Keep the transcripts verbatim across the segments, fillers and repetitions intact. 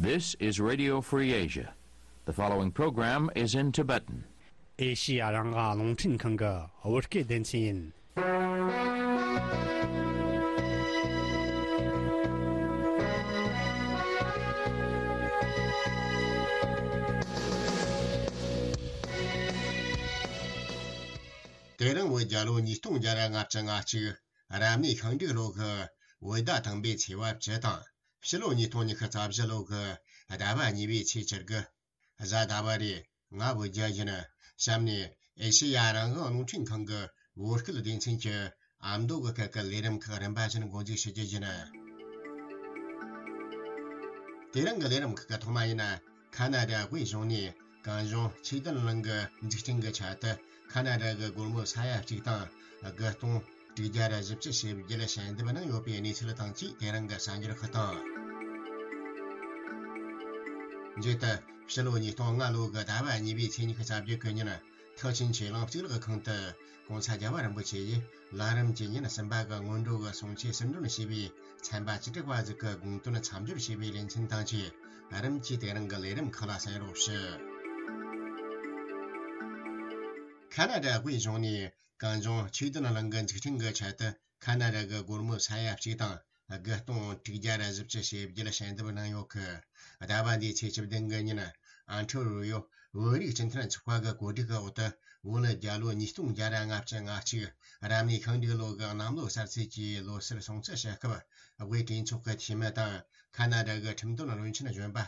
This is Radio Free Asia. The following program is in Tibetan. ཨེ་ཤི་ཡ་རང་དབང་རླུང་འཕྲིན་ཁང་གི་བོད་སྐད་སྡེ་ཚན་ཡིན། དེ་རིང་བོད་རྒྱལ་ལོ་ཉིས་སྟོང་བརྒྱ་ལྔ་བཅུ་ང་གཅིག་རབ་གནས་ཤིང་འབྲུག་ལོ་གི་བོད་ཟླ་དང་པོའི་ཚེས་པ་བཅུ་དང་། ཕྱི་ལོ་ཉིས་སྟོང་ཉི་ཤུ་རྩ་བཞི་ལོ་གི་ཟླ་བ་གཉིས་པའི་ཚེས་བཅུ་དགུ། གཟའ་ཟླ་བ་རེད། ང་བོད་རྒྱལ་ཡིན། གཤམ་ནས་ཨེ་ཤེ་ཡ་རང་དབང་རླུང་འཕྲིན་ཁང་གི་བོད་སྐད་སྡེ་ཚན་གྱི་ཨ་མདོ་གི་སྐད་ཀྱི་ལས་རིམ་ཁག་རིམ་པ་བཞིན་འགོ་འཛུགས་ཞུ་རྒྱུ་ཡིན། དེ་རིང་གི་ལས་རིམ་ཁག་གི་ཐོག་མ་ཡིན་ན། ཁ་ན་ཌ་དབུས་གཞུང་ནས་གངས་ལྗོངས་ཆོས་ལྡན་གླིང་གི་འཛུགས་སྐྲུན་གྱི་ཆེད་དུ་ཁ་ན་ཌ་གི་སྒོར་མོ་ས་ཡ་གཅིག་དང་དགུ་སྟོང་དྲུག་བརྒྱ་ར་བཞི་བཅུ་ཞེ་བརྒྱད་ཞལ་འདེབས་གནང་ཡོད་པའི་གནས་ཚུལ་དང་བཅས། དེ་རིང་གི་གསར་འགྱུར་ཁག་དང་། མཇུག་ཏུ་ཕྱི་ལོ་ཉིས་སྟོང་ལྔ་ལོ་གི་ཟླ་བ་གཉིས་པའི་ཚེས་ཉི་ཤུ་རྩ་བརྒྱད་གི་ཉིན། ཐེག་ཆེན་ཆོས་གླིང་གཙུག་ལག་ཁང་དུ་༸གོང་ས་༸རྒྱལ་བ་རིན་པོ་ཆེ་ཡིས་ལམ་རིམ་གྱི་ཉིན་གསུམ་པ་གི་སྔོན་འགྲོ་གི་གསུང་ཆོས་ཟུར་འདོན་བྱས་པའི་ཚན་པ་བཅུ་དྲུག་པ་ཟིག་གི་དགོངས་དོན་མཚམས་སྦྱོར་བྱས་པའི་ལེ་ཚན་དང་བཅས། རིམ་གྱིས་དེ་རིང་གི་ལས་རིམ་ཁག་ལ་གསན་རོགས་ཞུ། ཁ་ན་ཌ་དབུས་གཞུང་ནས་གངས་ལྗོངས་ཆོས་ལྡན་གླིང་གི་འཛུགས་སྐྲུན་གྱི་ཆེད་དུ་ཁ་ན་ཌ་གི་སྒོར་མོ་ས་ཡ་གཅིག་དང་དགུ་སྟོང་དྲུག་བརྒྱ་ར་བཞི་བཅུ་ཞེ་བརྒྱད་ཞལ་འདེབས་གནང་ཡོད་གི། ཟླ་བ་འདིའི་ཚེས་བཅུ་བདུན་གི་ཉིན། ཨན་ཁྲི་རུ་ཡོ་བོད་རིགས་སྤྱི་མཐུན་ཚོགས་པ་གི་གོ་སྒྲིག་གི་འོག་ཏུ། བོད་རྒྱལ་ལོ་ཉིས་སྟོང་བརྒྱ་ར་ལྔ་བཅུ་ང་གཅིག་རབ་གནས་ཤིང་འབྲུག་ལོ་གི་གནམ་ལོ་གསར་ཚེས་ཀྱི་ལོ་གསར་སྲུང་བརྩི་ཞུ་སྐབས། དབུས་གྲོས་ཚོགས་ཀྱི་འཐུས་མི་དང་ཁ་ན་ཌ་གི་ཁྲིམས་དོན་བློན་ཆེན་གཞོན་པ་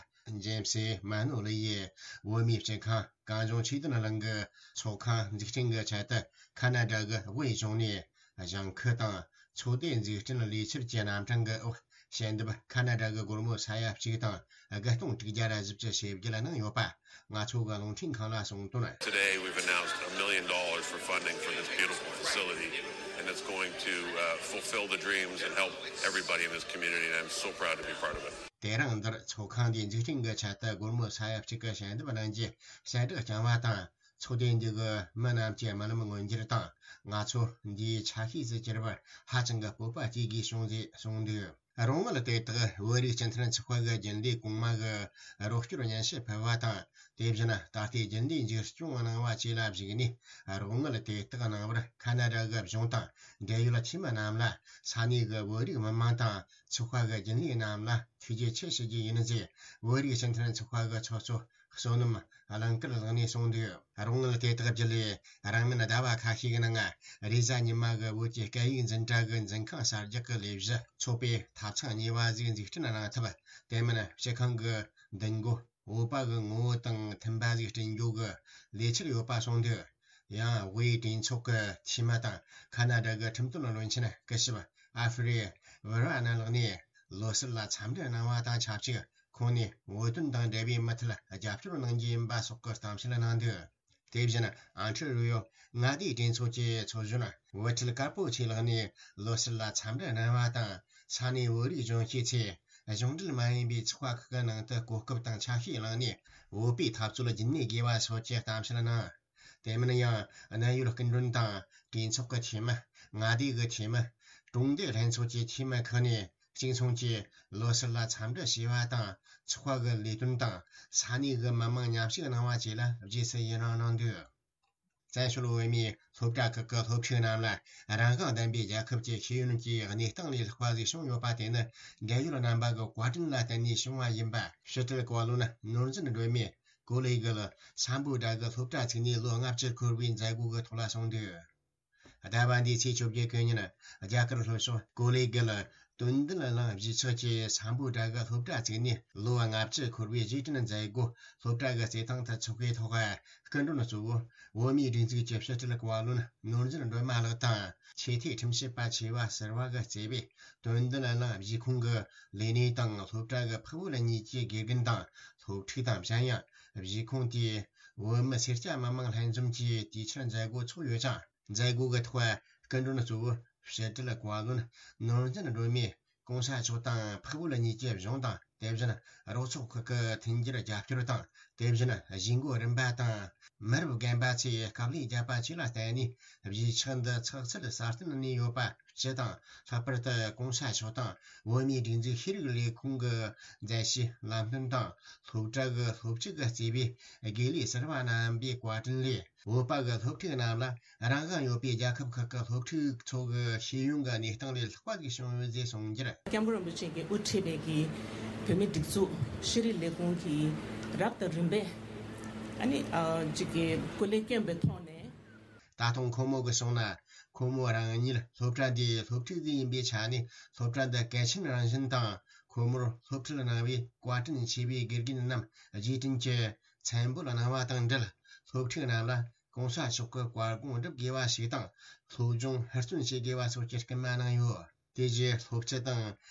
ཇེམ་སི་མ་ནོ་ལི་ཡིས་བོད་མིའི་སྤྱི་ཁང་གངས་ལྗོངས་ཆོས་ལྡན་གླིང་གི་ཚོགས་ཁང་འཛུགས་སྐྲུན་གྱི་ཆེད་དུ་ཁ་ན་ཌ་གི་དབུས་གཞུང་ནས་གཞེངས་ཁུལ་དང་ཚོགས་སྡེ་འཛུགས་སྐྲུན་ལས་འཆར་གྱི་རྣམ་གྲངས་ཀྱི་འོག་ཞལ་འདེབས་ཁ་ན་ཌ་གི་སྒོར་མོ་ས་ཡ་གཅིག་དང་དགུ་སྟོང་དྲུག་བརྒྱ་ར་བཞི་བཅུ་ཞེ་བརྒྱད་གནང་ཡོད་པ། ང་ཚོ་གི་རླུང་འཕྲིན་ཁང་ལ་གསུངས་དོན། Today we've announced a million dollars for funding for this beautiful facility, and it's going to, uh, fulfill the dreams and help everybody in this community, and I'm so proud to be part of it. དེ་རིང་འདིར་ཚོགས་ཁང་འདིའི་འཛུགས་སྐྲུན་གྱི་ཆེད་དུ་སྒོར་མོ་ས་ཡ་གཅིག་གི་ཞལ་འདེབས་གནང་རྒྱུ་གསལ་བསྒྲགས་བསྐྱངས་པ་དང་། ཚོགས་སྡེ་འདི་གི་མི་རྣམས་ཀྱི་རྨི་ལམ་མངོན་འགྱུར་དང་། ང་ཚོ་འདིའི་ཆ་ཤས་སུ་གྱུར་པར་ཧ་ཅང་གི་སྤོབས་པ་སྐྱེ་དགོས་བྱུང་ཞེས་གསུངས་འདུག་རོགས་དངུལ་དེ་དག་བོད་རིགས་སྤྱི་མཐུན་ཚོགས་པ་གི་རྒྱུན་ལས་གོང་མ་གི་རོགས་སྐྱོར་སྙན་ཞུ་ཕུལ་བ་དང་། དེ་བཞིན་ད་ལྟའི་རྒྱུན་ལས་འཛུགས་སྐྱོང་གནང་བ་བཅས་ལ་གཞིགས་ནས། རོགས་དངུལ་དེ་དག་གནང་བར་ཁ་ན་ཌ་གི་གཞུང་དང་འབྲེལ་ཡོད་འཐུས་མི་རྣམས་ལ་ས་གནས་ཀྱི་བོད་རིགས་མི་མང་དང་ཚོགས་པ་གི་རྒྱུན་ལས་རྣམས་ལ་ཐུགས་རྗེ་ཆེ་ཞུ་རྒྱུ་ཡིན་ཞེས། བོད་རིགས་སྤྱི་མཐུན་ཚོགས་པ་གི་ཚོགས་གཙོ་བསོད་ནམས་གླིང་དཀར་ལགས་ནས་གསུངས་འདུག་རོགས་དངུལ་དེ་དག་བརྒྱུད་ལས་རིང་མིན་ཟླ་བ་ཁ་ཤས་ཀྱི་ནང་། རེས་གཟའ་ཉི་མ་གི་བོད་ཀྱི་སྐད་ཡིག་འཛིན་གྲྭ་གི་འཛིན་ཁང་གསར་རྒྱག་གི་ལས་གཞི་ཚོགས་པའི་ཐབ་ཚང་གཉིས་པ་ཞིག་འཛུགས་སྐྲུན་གནང་ཐབས། དེ་མིན་སྤྱི་ཁང་གི་མདུན་སྒོ་བོད་པ་གི་ངོ་བོ་དང་མཐུན་པ་ཞིག་བསྐྲུན་རྒྱུ་གི་ལས་འཆར་ཡོད་པ་གསུངས་འདུག་ཡང་དབུས་གྲོས་ཚོགས་ཀྱི་འཐུས་མི་དང་ཁ་ན་ཌ་གི་ཁྲིམས་དོན་བློན་ཆེན་སྐུ་ཞབས་ཨ་ཧྥེ་རི་ཝེ་ར་ན་ལགས་ནས་ལོ་གསར་ལ་འཚམས་འདྲི་གནང་བ་དང་ཆབས་ཅིག་ཁོང་ནས་བོད་དོན་དང་འབྲེལ་བའི་མུ་མཐུད་རྒྱབ་སྐྱོར་གནང་རྒྱུ་ཡིན་པ་སོགས་ཀྱི་གཏམ་བཤད་གནང་འདུག་དེ་བཞིན་ཨན་ཁྲི་རུ་ཡོ་མངའ་སྡེའི་གྲོས་ཚོགས་ཀྱི་ཚོགས་གཞོན་བུ་ཁྲིད་དཀར་པོ་ཆེ་ལགས་ནས་ལོ་གསར་ལ་འཚམས་འདྲི་གནང་བ་དང་། ས་གནས་བོད་རིགས་གཞོན་སྐྱེས་ཚོས་གཞུང་འབྲེལ་མ་ཡིན་པའི་ཚོགས་པ་ཁག་གི་ནང་དུ་གོ་སྐབས་དང་ཆ་ཤས་བླངས་ནས་བོད་པའི་འཐབ་རྩོད་རྒྱུན་གནས་དགོས་པ་སོགས་ཀྱི་གཏམ་བཤད་གནང་། དེ་མིན་ཡང་གནད་ཡོད་སྐུ་མགྲོན་དང་གྲོས་ཚོགས་ཀྱི་འཐུས་མི། མངའ་སྡེ་གི་འཐུས་མི། གྲོང་སྡེ་ལྷན་ཚོགས་ཀྱི་འཐུས་མི་ཁག་ནས་གཅིག་མཚུངས་ཀྱིས་ལོ་གསར་ལ་འཚམས་འདྲི་ཞུས་པ་དང་། ཚོགས་པ་གི་ལས་དོན་དང་ས་གནས་ཀྱི་མི་མང་མཉམ་ཞུགས་གནང་བ་བཅས་ལ་རྗེས་སུ་ཡི་རང་གནང་འདུག་བཙན་བྱོལ་བོད་མིའི་སློབ་གྲྭ་ཁག་གི་སློབ་ཕྲུག་རྣམས་ལ་རང་དབང་ལྡན་པའི་རྒྱལ་ཁབ་ཀྱི་ཤེས་ཡོན་གྱི་གནས་སྟངས་ལས་ལྷག་པ་ཞིག་བྱུང་ཡོད་པ་དེ་ནི་འབྲེལ་ཡོད་རྣམ་པ་གི་བཀའ་དྲིན་ལ་བརྟེན་ནས་བྱུང་བ་ཡིན་པ། ཕྱི་དྲིལ་བཀའ་བློན་ནོར་འཛིན་སྒྲོལ་མས་ཀོ་ལི་གྷལ་སམ་བྷོ་ཊ་གི་སློབ་གྲྭ་བཙུགས་ནས་ལོ་ལྔ་བཅུ་འཁོར་བའི་མཛད་སྒོ་གི་ཐོག་ལ་གསུངས་འདུག་ཟླ་བ་འདིའི་ཚེས་བཅོ་བརྒྱད་གི་ཉིན། རྒྱ་གར་ལྷོ་ཕྱོགས་ཀོ་ལི་གྷལ་དོན་ལྡན་གླིང་གཞིས་ཆགས་ཀྱི་སམ་བྷོ་ཊ་གི་སློབ་གྲྭ་བཙུགས་ནས་ལོ་ལྔ་བཅུ་འཁོར་བའི་རྗེས་དྲན་མཛད་སྒོ་སློབ་གྲྭ་གི་རྩེད་ཐང་དུ་འཚོགས་པའི་ཐོག་སྐུ་མགྲོན་གཙོ་བོ་བོད་མིའི་སྒྲིག་འཛུགས་ཀྱི་ཕྱི་དྲིལ་བཀའ་བློན་ནོར་འཛིན་སྒྲོལ་མ་ལགས་དང་། ཆེས་མཐོའི་ཁྲིམས་ཞིབ་པ་ཆེ་བ་ཟུར་པ་གིས་གཙོས་པའི་དོན་ལྡན་གླིང་གཞིས་ཁོངས་ཀྱི་ལས་སྣེ་དང་སློབ་གྲྭ་གི་ཕུག་བོད་གཉིས་ཀྱི་དགེ་རྒན་དང་སློབ་ཕྲུག་དང་། གཞན་ཡང་གཞིས་ཁོངས་དེའི་བོད་མི་སེར་སྐྱ་མི་མང་ལྷན་འཛོམས་ཀྱིས་དུས་ཆེན་མཛད་སྒོ་འཚོགས་ཡོད་ཅིང་། མཛད་སྒོ་གི་ཐོག་སྐུ་མགྲོན་གཙོ་བོ་ཕྱི་དྲིལ་བཀའ་བློན་ནོར་འཛིན་སྒྲོལ་མས་གོང་ས་མཆོག་དང་ཕུག་བོད་གཉིས་ཀྱི་གཞུང་དང་ དེ་བཞིན་རོགས་ཚོགས་ཁག་གི་མཐུན་འགྱུར་རྒྱབ་སྐྱོར་དང་། དེ་བཞིན་གཞིས་འགོ་རིམ་པ་དང་མི་རབས་རྒན་པ་ཚོས་དཀའ་ལས་བརྒྱབ་པ་བཅས་ལ་བརྟེན་ནས། གཞིས་ཆགས་འདི་ཚགས་ཚུད་སྲ་བརྟན་གནས་ཡོད་པ། སྤྱི་དང་། ལྷག་པར་དུ་གོང་ས་མཆོག་དང་བོད་མིའི་སྒྲིག་འཛུགས་ཤེས་རིག་ལས་ཁུངས་ཀྱི་མཛད་རྗེས་ལམ་སྟོན་དང་། སློབ་གྲྭ་གི་སློབ་ཕྲུག་གིས་གཙོས་པའི་དགེ་ལས་ཟུར་པ་རྣམ་པའི་བཀའ་དྲིན་ལས། བོད་པ་གི་སློབ་ཕྲུག་རྣམས་ལ་རང་དབང་ཡོད་པའི་རྒྱལ་ཁབ་ཁག་གི་སློབ་ཕྲུག་ཚོ་གི་ཤེས་ཡོན་གྱི་གནས་སྟངས་ལས་ལྷག་པ་ཞིག་བྱུང་ཡོད་ཅེས་གསུངས་རྒྱུར། སྐྱབས་མགོན་རིན་པོ་ཆེ་གིས་དབུ་ཁྲིད་པའི་གི་བོད་མིའི་སྒྲིག་འཛུགས་ཤེས་རིག་ལས་ཁུངས་ཀྱིས་རབ་དང་རིམ་པས་ཨ་ནི་ཨ་ཅིག་གི་སྐུ་ལས་བསྐྱོན་པའི་ཐོག་ནས། ད་དུང་ཁོ་མོ་གིས་གསུངས་ན། ཁོ་མོ་རང་ཉིད་སློབ་གྲྭ་འདིའི་སློབ་ཕྲུག་ཅིག་ཡིན་པའི་ཆ་ནས། སློབ་གྲྭ་འདི་གལ་ཆེན་རང་བཞིན་དང་། ཁོ་མོར་སློབ་ཁྲིད་གནང་བའི་བཀའ་དྲིན་ཆེ་བའི་དགེ་རྒན་རྣམས་རྗེས་དྲན་གྱི་མཚན་འབོད་གནང་བ་དང་འབྲེལ། སློབ་ཕྲུག་རྣམས་ལ་གོང་ས་མཆོག་གི་བཀའ་དགོངས་སྒྲུབ་དགོས་པ་ཞིག་དང་། སློབ་སྦྱོང་ཧུར་བརྩོན་བྱེད་དགོས་པ་སོགས་ཀྱི་སྐུལ་མ་གནང་ཡོད། དེ་རྗེས་སློབ་སྤྱི་དང་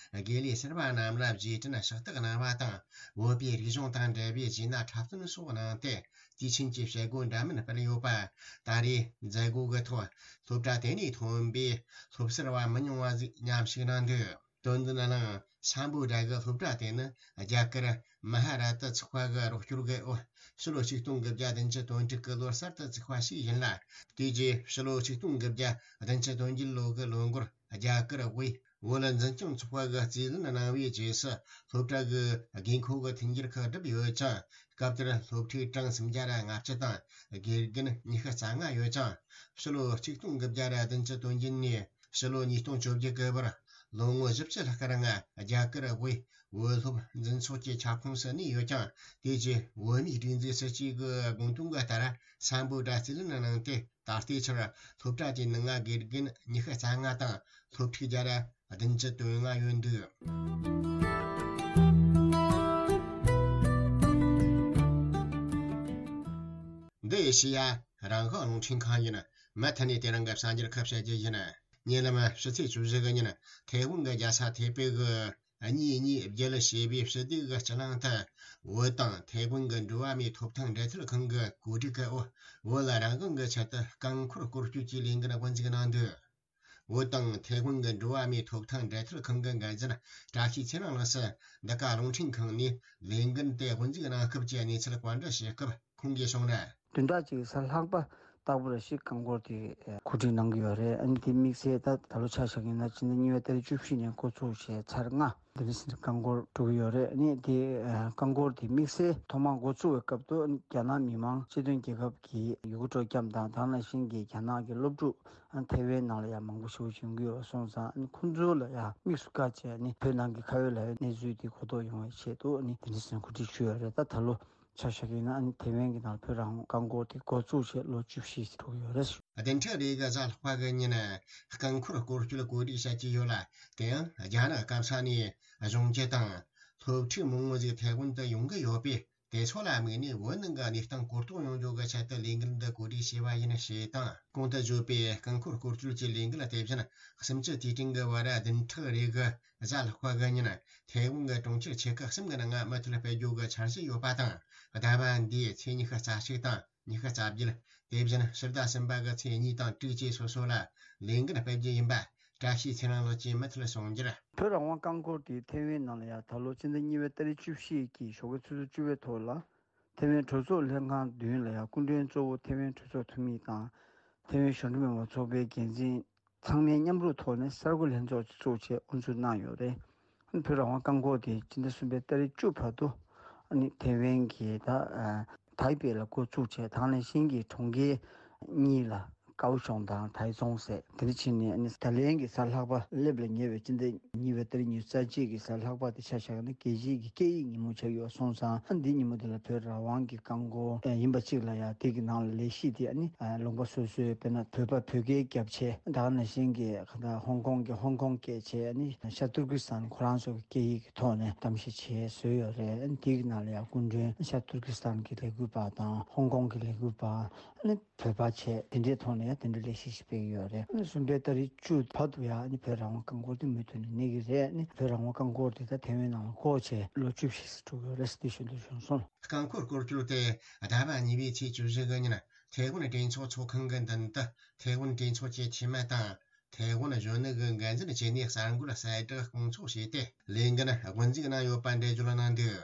དགེ་ལས་ཟུར་པ་རྣམས་ལ་རྗེས་དྲན་ཕྱག་རྟགས་གནང་བ་དང་། བོད་པའི་རིག་གཞུང་དང་འབྲེལ་བའི་རྗེས་གནང་འཁྲབ་སྟོན་སོགས་གནང་སྟེ། དུས་ཆེན་གྱི་བྱེད་སྒོ་འདྲ་མིན་སྤེལ་ཡོད་པ། ད་རེས་མཛད་སྒོ་གི་ཐོག་སློབ་གྲྭ་དེ་ནས་ཐོན་པའི་སློབ་ཟུར་བ་མི་ཉུང་བ་ཞིག་མཉམ་ཞུགས་གནང་འདུག་དོན་ལྡན་གླིང་སམ་བྷོ་ཊ་གི་སློབ་གྲྭ་དེ་ནི་རྒྱ་གར་མ་ཧ་ར་ཏི་ཚོགས་པ་གི་རོགས་སྐྱོར་གྱི་འོག་ཕྱི་ལོ་ཆིག་སྟོང་དགུ་བརྒྱ་བདུན་ཅུ་དོན་དྲུག་གི་ལོར་གསར་དུ་བཙུགས་པ་ཞིག་ཡིན་ལ། དེ་རྗེས་ཕྱི་ལོ་ཆིག་སྟོང་དགུ་བརྒྱ་བདུན་ཅུ་དོན་བརྒྱད་ལོ་གི་ལོ་འགོར་རྒྱ་གར་དབུས་བོད་འཛིན་སྐྱོང་ཚོགས་པ་གི་རྩིས་ལེན་གནང་བའི་རྗེས་སུ། སློབ་གྲྭ་གི་དགོས་མཁོ་གི་མཐུན་འགྱུར་ཁག་བསྒྲུབས་ཡོད་ཅིང་། སྐབས་དེར་སློབ་ཕྲུག་གྲངས་སུམ་བརྒྱ་ར་ལྔ་བཅུ་དང་། དགེ་རྒན་ཉི་ཤུ་རྩ་ལྔ་ཡོད་ཅིང་། ཕྱི་ལོ་ཆིག་སྟོང་དགུ་བརྒྱ་ར་བདུན་ཅུ་དོན་བརྒྱད་ནས་ཕྱི་ལོ་ཉིས་སྟོང་བཅོ་བརྒྱད་གི་བར། ལོ་ངོ་བཞི་བཅུ་ལྷག་གི་རིང་རྒྱ་གར་དབུས་བོད་སློབ་འཛིན་ཚོགས་ཀྱི་ཁྱབ་ཁོངས་སུ་གནས་ཡོད་ཀྱང་། དེ་རྗེས་བོད་མིའི་སྒྲིག་འཛུགས་སྲིད་ཇུས་ཀྱི་དགོངས་དོན་གྱི་ལྟར་སམ་བྷོ་ཊ་རྩིས་ལེན་གནང་སྟེ། ད་ལྟའི་ཆར་སློབ་གྲྭ་དེའི་ནང་དགེ་རྒན་ཉི་ཤུ་རྩ་ལྔ་དང་སློབ་ཕྲུག་བརྒྱ་ར་བདུན་ཅུ་དོན་ལྔ་ཡོད་འདུག་འདི་ཨེ་ཤེ་ཡ་རང་དབང་རླུང་འཕྲིན་ཁང་ཡིན། མུ་མཐུད་ནས་དེ་རིང་གི་གསར་འགྱུར་ཁག་བཤད་རྒྱུ་ཡིན། ཉེ་ལམ་ཕྱི་ཚེས་བཅུ་བཞི་གི་ཉིན་ཐའེ་ཝན་གྱི་རྒྱལ་ས་ཐའེ་པེ་གི་གཉིས་གཉིས་བརྒྱད་ཞེས་པའི་ཕྱི་སྡོད་ཀྱི་སྤྱི་གླིང་དུ། བོད་དང་ཐའེ་ཝན་གྱི་འགྲོ་བ་མིའི་ཐོབ་ཐང་འབྲེལ་མཐུད་ཁང་གི་གོ་སྒྲིག་གི་འོག་བོད་ལ་རང་དབང་གི་ཆེད་དུ་རྐང་འཁོར་སྐོར་སྐྱོད་ཀྱི་ལས་འགུལ་དབུ་འཛུགས་གནང་འདུག་བོད་དང་ཐའེ་ཝན་གྱི་འགྲོ་བ་མིའི་ཐོབ་ཐང་འབྲེལ་མཐུད་ཁང་གི་འགན་འཛིན་བཀྲ་ཤིས་ཚེ་རིང་ལགས་སུ་འདི་ག་རླུང་འཕྲིན་ཁང་ནས་ལས་འགུལ་དེ་དབུ་འཛུགས་གནང་སྐབས་ཀྱི་གནས་ཚུལ་བཀའ་འདྲི་ཞུས་སྐབས་ཁོང་གིས་གསུངས་ན། བདུན་ཕྲག་གཅིག་གི་གཟའ་ལྷག་པ་ལྟ་བུ་ལ་ཞིག་རྐང་འཁོར་དེ་གོ་སྒྲིག་གནང་གི་ཡོད་རེད། ཨ་ནི་དེ་དམིགས་བསལ་ད་ད་ལོ་ཆ་བཞག་ཡིན་ན་ཕྱི་ཟླ་གཉིས་པའི་ཏ་རིག་བཅུ་བཞི་ནས་འགོ་ཚུགས་བྱས་ཚར་ལྔ། འདི་འདྲ་ཟེར་རྐང་འཁོར་འགྲོ་གི་ཡོད་རེད། ཨ་ནི་དེ་རྐང་འཁོར་དེ་དམིགས་བསལ་ཐོག་མར་འགོ་ཚུགས་པའི་སྐབས་དུ་རྒྱ་ནག་མི་དམངས་སྤྱི་མཐུན་རྒྱལ་ཁབ་ཀྱི་ཡུལ་གྲུ་ཁྲོམ་སྐྱབས་དང་དེ་ནང་བཞིན་གྱི་རྒྱ་ནག་གི་སློབ་ཕྲུག་ཐའེ་ཝན་ནང་ལ་ཡང་མང་པོ་ཞིག་ཡོང་གི་ཡོད་སོང་ཙང་། ཁོང་ཚོ་ལ་ཡང་དམིགས་སུ་བཀར་བྱས་ནས་བོད་ནང་གི་ཁ་ཡོད་ལག་ཡོད་གནས་ཚུལ་དེ་གོ་རྟོགས་ཡོང་བའི་ཆེད་དུ་ཨ་ནི་དེ་འདྲ་ཟེར་གོ་སྒྲིག་ཞུས་ཡོད་རེད། ད་ད་ལོ་ཆ་བཞག་གི་ཡིན་ན་ཨ་ནི་ཐའེ་ཝན་གྱི་ནང་བོད་རང་དབང་རྐང་འཁོར་དེ་འགོ་བཙུགས་བྱས་ལོ་བཅུ་བཞི་འགྲོ་གི་ཡོད་རེད། བདུན་ཕྲག་རེ་གི་གཟའ་ལྷག་པ་གི་ཉིན་རྐང་འཁོར་སྐོར་སྐྱོད་གོ་སྒྲིག་བྱ་གི་ཡོད་ལ། དེ་ཡང་རྒྱ་ནག་སྐམ་ས་ནས་གཞུང་སྒྱུར་དང་སློབ་ཕྲུག་མང་བོ་ཞིག་ཐའེ་ཝན་དུ་ཡོང་གི་ཡོད་པས། དེ་ཚོ་ལ་དམིགས་ནས་བོད་ནང་གི་གནས་སྟངས་གོ་རྟོགས་ཡོང་རྒྱུ་གི་ཆེད་དུ་ལས་འགུལ་འདི་གོ་སྒྲིག་བྱས་པ་ཡིན་ཞེས་དང་། གོང་དུ་བརྗོད་པའི་རྐང་འཁོར་སྐོར་སྐྱོད་ཀྱི་ལས་འགུལ་དེ་བཞིན་གཤིན་རྗེ་དུས་དྲན་གྱི་བར་བདུན་ཕྲག་རེ་གི་གཟའ་ལྷག་པ་གི་ཉིན་ཐའེ་ཝན་གྱི་གྲོང་ཁྱེར་ཆེ་ཁག་གསུམ་གྱི་ནང་མུ་མཐུད་སྤེལ་རྒྱུ་གི་འཆར་གཞི་ཡོད་པ་དང་། ཟླ་བ་འདིའི་ཚེས་ཉི་ཤུ་རྩ་གཅིག་དང་ཉི་ཤུ་རྩ་བརྒྱད། དེ་བཞིན་ཕྱི་ཟླ་གསུམ་པ་གི་ཚེས་གཉིས་དང་དྲུག་བཅས་སོ་སོ་ལ་ལས་འགུལ་སྤེལ་རྒྱུ་ཡིན་པ། བཀྲ་ཤིས་ཚེ་རིང་ལགས་ཀྱིས་མུ་མཐུད་གསུངས་རྒྱུར། བོད་རང་དབང་རྐང་འཁོར་དེ་ཐའེ་ཝན་ནང་ལ་ཡང་ད་ལོ་ཕྱི་ཟླ་གཉིས་པའི་ཏ་རིག་བཅུ་བཞི་གི་ཞོགས་ཀའི་ཆུ་ཚོད་བཅུ་པའི་ཐོག་ལ་ཐའེ་ཝན་གྲོས་ཚོགས་ལྷན་ཁང་མདུན་ལ་ཡང་སྐུ་མགྲོན་གཙོ་བོ་ཐའེ་ཝན་གྲོས་ཚོགས་འཐུས་མི་དང་། ཐའེ་ཝན་གཞོན་ནུ་མི་མང་ཚོགས་པའི་འགན་འཛིན་ཚང་མས་མཉམ་རུབ་ཐོག་ནས་གསར་འགོད་ལྷན་ཚོགས་ཅིག་བཙུགས་བྱས་དབུ་འཛུགས་གནང་ཡོད་རེད། བོད་རང་དབང་རྐང་འཁོར་དེ་སྤྱི་ཟླ་གསུམ་པའི་ཏ་རིག་བཅུ་བར་དུ་ཨ་ནི་ཐའེ་ཝན་གྱི་ད་ཨ་ཐའེ་པེ་ལ་འགོ་བཙུགས་བྱས། དེ་ནང་བཞིན་གྱི་གྲོང་ཁྱེར་གཉིས་ལ། ཀའོ་ཤོང་དང་ཐའེ་ཙུང་ཟེར་དེ་འདྲ་བྱས་ནས་ཨ་ནི་ད་ལན་གྱི་གཟའ་ལྷག་པ་སླེབས་ལ་ཉེ་བའི་སྤྱི་ཟླ་གཉིས་པའི་ཏ་རིག་ཉི་ཤུ་རྩ་གཅིག་གི་གཟའ་ལྷག་པ་དེ་ཆ་བཞག་ན་རྒྱལ་སྤྱིའི་གི་སྐད་ཡིག་ཉིན་མོ་ཆགས་ཡོད་སོང་ཙང་། ཨ་འདི་ཉིན་མོ་དེ་ལ་བོད་རང་དབང་གི་རྐང་འཁོར་ཡིན་པ་གཅིག་ལ་ཡང་དེ་གི་ནང་ལ་ལས་གཞི་དེ་ཨ་ནི་ལུང་པ་སོ་སོའི་དཔེར་ན་བོད་པ་བོད་སྐད་རྒྱབ་བྱས། དེ་ནང་བཞིན་གྱི་ཧོང་ཀོང་གི་ཧོང་ཀོང་སྐད་བྱས། ཨ་ནི་ཤར་ཏུར་ཀི་སི་ཐན་ཁོ་རང་ཚོ་གི་སྐད་ཡིག་གི་ཐོག་ནས་གཏམ་བཤད་བྱས་བཟོས་ཡོད་རེད། ཨ་ནི་དེ་གི་ནང་ལ་ཡང་སྐུ་མགྲོན་ཤར་ཏུར་ཀི་སི་ཐན་གྱི་ལས་འགུལ་པ་དང་ཧོང་ཀོང་གི་ལས་འགུལ་པ། ཨ་ནི་བོད་པ་བྱས་དེ་འདྲའི་ཐོག་ནས་ཡང་དེ་འདྲའི་ལས་གཞི་ཞིག་སྤེལ་གྱི་ཡོད་རེད། ཨ་ནི་གསུམ་པའི་ཏ་རིག་བཅུ་བར་དུ་ཡང་ཨ་ནི་བོད་རང་དབང་རྐང་འཁོར་དེ་མུ་མཐུད་ནས་གནས་ཀྱི་རེད། ཨ་ནི་བོད་རང་དབང་རྐང་འཁོར་དེ་ད་ཐའེ་ཝན་ནང་ལ་འགོ་བྱས་ལོ་བཅུ་བཞི་ཙམ་འགྲོ་གི་ཡོད་རེད་ཟེར་དེ་ཞུ་འདོད་བྱུང་སོང་། རྐང་འཁོར་སྐོར་སྐྱོད་དེ་ཟླ་བ་གཉིས་པའི་ཚེས་བཅུ་བཞི་གི་ཉིན་ཐའེ་ཝན་གྲོས་ཚོགས་ཚོགས་ཁང་གི་མདུན་དུ་ཐའེ་ཝན་གྲོས་ཚོགས་ཀྱི་འཐུས་མི་དང་ ཐའེ་ཝན་གཞོན་ནུ་གི་འགན་འཛིན་བྱས་ནས་གསར་འགོད་གསལ་བསྒྲགས་སྐོང་ཚོགས་བྱས་ཏེ། ལས་འགན་དབུ་འཛུགས་གནང་ཡོད་པ་འགྲེལ་བརྗོད་གནང་འདུག་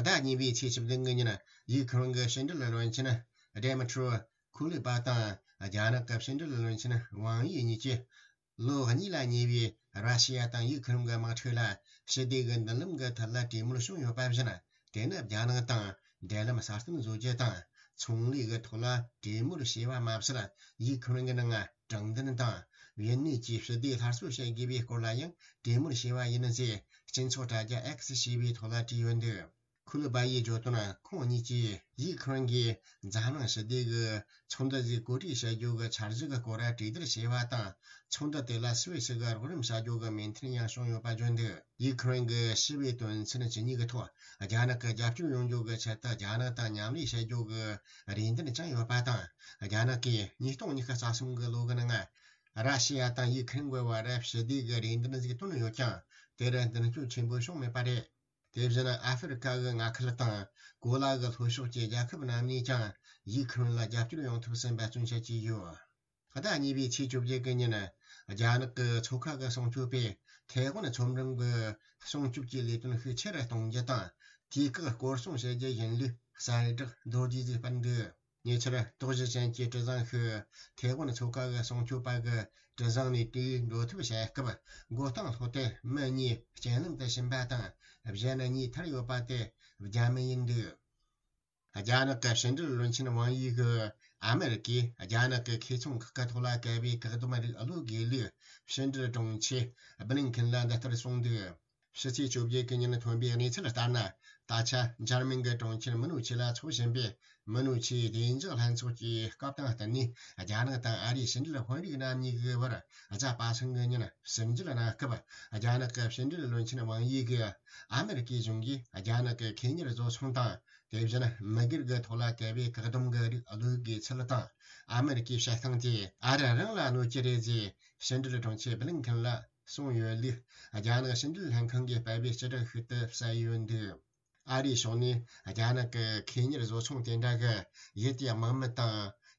ཟླ་གཉིས་པའི་ཚེས་བཅུ་བདུན་གྱི་ཉིན། ཡུ་ཁུ་རེན་གྱི་ཕྱི་འབྲེལ་བློན་ཆེན་ཌེ་མི་ཏྲོ་ཁུ་ལི་པ་དང་རྒྱ་ནག་གི་ཕྱི་འབྲེལ་བློན་ཆེན་ཝང་དབྱི་གཉིས་ཀྱིས། ལོ་གཉིས་ལ་ཉེ་བའི་ར་ཤི་ཡ་དང་ཡུ་ཁུ་རེན་གྱི་དམག་འཁྲུག་ལ་ཞི་བདེ་གི་མདུན་ལམ་གྱི་ཐད་ལ་གྲོས་མོལ་བྱུང་ཡོད་པ་བཞིན། དེ་ནི་རྒྱ་ནག་དང་འབྲེལ་ལམ་སྲ་བརྟན་བཟོ་རྒྱུ་དང་། ཚོང་ལས་ཀྱི་ཐོག་ལ་གྲོས་མོལ་བྱས་པ་མ་ཟད། ཡུ་ཁུ་རེན་གྱི་ནང་དྲང་བདེན་དང་། ཡུན་གནས་ཀྱི་ཞི་བདེ་སླར་གསོ་བྱེད་དགོས་པའི་སྐོར་ལ་ཡང་གྲོས་མོལ་བྱས་པ་ཡིན་ཟེར། སྤྱི་ཚོགས་དྲ་རྒྱ་X་ཞེས་པའི་ཐོག་ལ་བྲིས་ཡོད་འདུག་ཁུ་ལི་པ་ཡིས་བརྗོད་དོན། ཁོང་གཉིས་ཀྱིས་ཡུ་ཁུ་རེན་གྱིས་འཛམ་གླིང་ཞི་བདེ་གི་ཚོགས་འདུ་ཞིག་གོ་སྒྲིག་བྱ་རྒྱུ་གི་འཆར་གཞི་གི་སྐོར་གྲོས་བསྡུར་བྱས་པ་དང་། ཚོགས་འདུ་དེ་ལ་སུད་སི་གི་རོགས་རམ་བྱ་རྒྱུ་གི་མོས་མཐུན་ཡང་བྱུང་ཡོད་པ་བརྗོད་འདུག་ཡུ་ཁུ་རེན་གྱི་ཞི་བའི་དོན་ཚན་བཅུ་གཉིས་ཀྱི་ཐོག་རྒྱ་ནག་གི་རྒྱབ་སྐྱོར་ཡོང་རྒྱུ་གི་ཆེད་དུ་རྒྱ་ནག་དང་མཉམ་ལས་བྱ་རྒྱུ་གི་རེ་འདུན་བཅངས་ཡོད་པ་དང་། རྒྱ་ནག་གིས་ཉིས་སྟོང་ཉི་ཤུ་རྩ་གསུམ་གྱི་ལོ་གི་ནང་ར་ཤི་ཡ་དང་ཡུ་ཁུ་རེན་གྱི་བར་ཞི་བདེ་གི་རེ་འདུན་ཞིག་བཏོན་ཡོད་ཀྱང་། དེར་མདུན་སྐྱོད་ཆེན་པོ་བྱུང་མེད་པ་རེད། དེ་བཞིན་ཨ་ཧྥེ་རི་ཁ་གི་མངའ་ཁུལ་དང་གོ་ལ་གི་ལྷོ་ཕྱོགས་ཀྱི་རྒྱལ་ཁབ་རྣམས་ནས་ཀྱང་ཡུ་ཁུ་རེན་ལ་རྒྱབ་སྐྱོར་ཡོང་ཐབས་སུ་འབད་བརྩོན་བྱེད་ཀྱི་ཡོད། ཟླ་གཉིས་པའི་ཚེས་བཅོ་བརྒྱད་ཀྱི་ཉིན། རྒྱ་ནག་གི་མཚོ་ཁ་གི་སྲུང་སྐྱོབ་པས་ཐའེ་ཝན་མཚོ་འགྲམ་གྱི་སྲུང་སྐྱོབ་ཀྱི་ལས་དོན་ཤུགས་ཆེ་རུ་གཏོང་རྒྱུ་དང་། དུས་བཀག་སྐོར་སྲུང་བྱེད་རྒྱུ་ཡིན་ལུགས་གསལ་བསྒྲགས་མདོར་བསྡུས་ཤིག་སྤེལ་འདུག་ཉེ་ཆར་དོགས་གཞི་ཅན་གྱི་གྲུ་གཟིངས་ཤིག་ཐའེ་ཝན་མཚོ་ཁ་གི་སྲུང་སྐྱོབ་པ་གི་གྲུ་གཟིངས་ནས་དེའི་འགྲོ་ཐབས་བྱེད་སྐབས། མགོ་རྟིང་སློག་སྟེ་མི་གཉིས་རྐྱེན་ལམ་དུ་ཕྱིན་པ་དང་། གཞན་གཉིས་ཐར་ཡོད་པ་དེ་རྒྱ་མི་ཡིན་འདུག་རྒྱ་ནག་གི་ཕྱི་འབྲེལ་བློན་ཆེན་ཝང་དབྱི་གིས་ཨ་མེ་རི་ཀས་རྒྱ་ནག་གི་ཁེ་ཚོང་ཁག་གི་ཐོག་ལ་བཀལ་བའི་བཀག་སྡོམ་རིགས་གློད་དགོས་ལུགས་ཕྱི་འབྲེལ་དྲུང་ཆེ་བྷི་ལིན་ཁིན་ལ་འདི་ལྟར་གསུངས་འདུག་ཕྱི་ཚེས་བཅོ་བརྒྱད་ཀྱི་ཉིན་ཐོན་པའི་གནས་ཚུལ་ལྟར་ན། ད་ཆ་འཇར་མན་གྱི་གྲོང་ཁྱེར་མུ་ནུ་ཆི་ལ་འཚོགས་བཞིན་པའི་མུ་ནུ་ཆིའི་བདེ་འཇགས་ལྷན་ཚོགས་ཀྱི་སྐབས་དང་བསྟུན་ནས། རྒྱ་ནག་དང་ཨ་རིའི་ཕྱི་འབྲེལ་དཔོན་རིགས་རྣམ་གཉིས་ཀྱི་བར་གཟའ་པ་སངས་ཀྱི་ཉིན་ཟུར་འཇལ་གནང་སྐབས། རྒྱ་ནག་གི་ཕྱི་འབྲེལ་བློན་ཆེན་ཝང་དབྱི་གིས་ཨ་མེ་རི་ཀའི་གཞུང་གིས་རྒྱ་ནག་གི་ཁེ་གཉེར་བཟོ་ཚོང་དང་། དེ་བཞིན་མི་སྒེར་གྱི་ཐོག་ལ་བཀལ་བའི་བཀག་སྡོམ་གྱི་རིགས་གློད་དགོས་ཚུལ་དང་། ཨ་མེ་རི་ཀའི་བྱེད་སྟངས་དེ་ཨ་རི་རང་ལ་གནོད་ཀྱི་རེད་ཅེས་ཕྱི་འབྲེལ་དྲུང་ཆེ་བྷི་ལིན་ཁིན་ལ་གསུངས་ཡོད་ལུགས། རྒྱ་ནག་ཕྱི་འབྲེལ་ལྷན་ཁང་གིས་སྤེལ་བའི་སྤྱི་བསྒྲགས་ཤིག་ཏུ་གསལ་ཡོད་འདུག་ཨ་རིའི་ཕྱོགས་ནས་རྒྱ་ནག་གི་ཁེ་གཉེར་བཟོ་ཚོང་དེ་འདྲ་གི་ཡུལ་དེའི་དམག་མི་དང་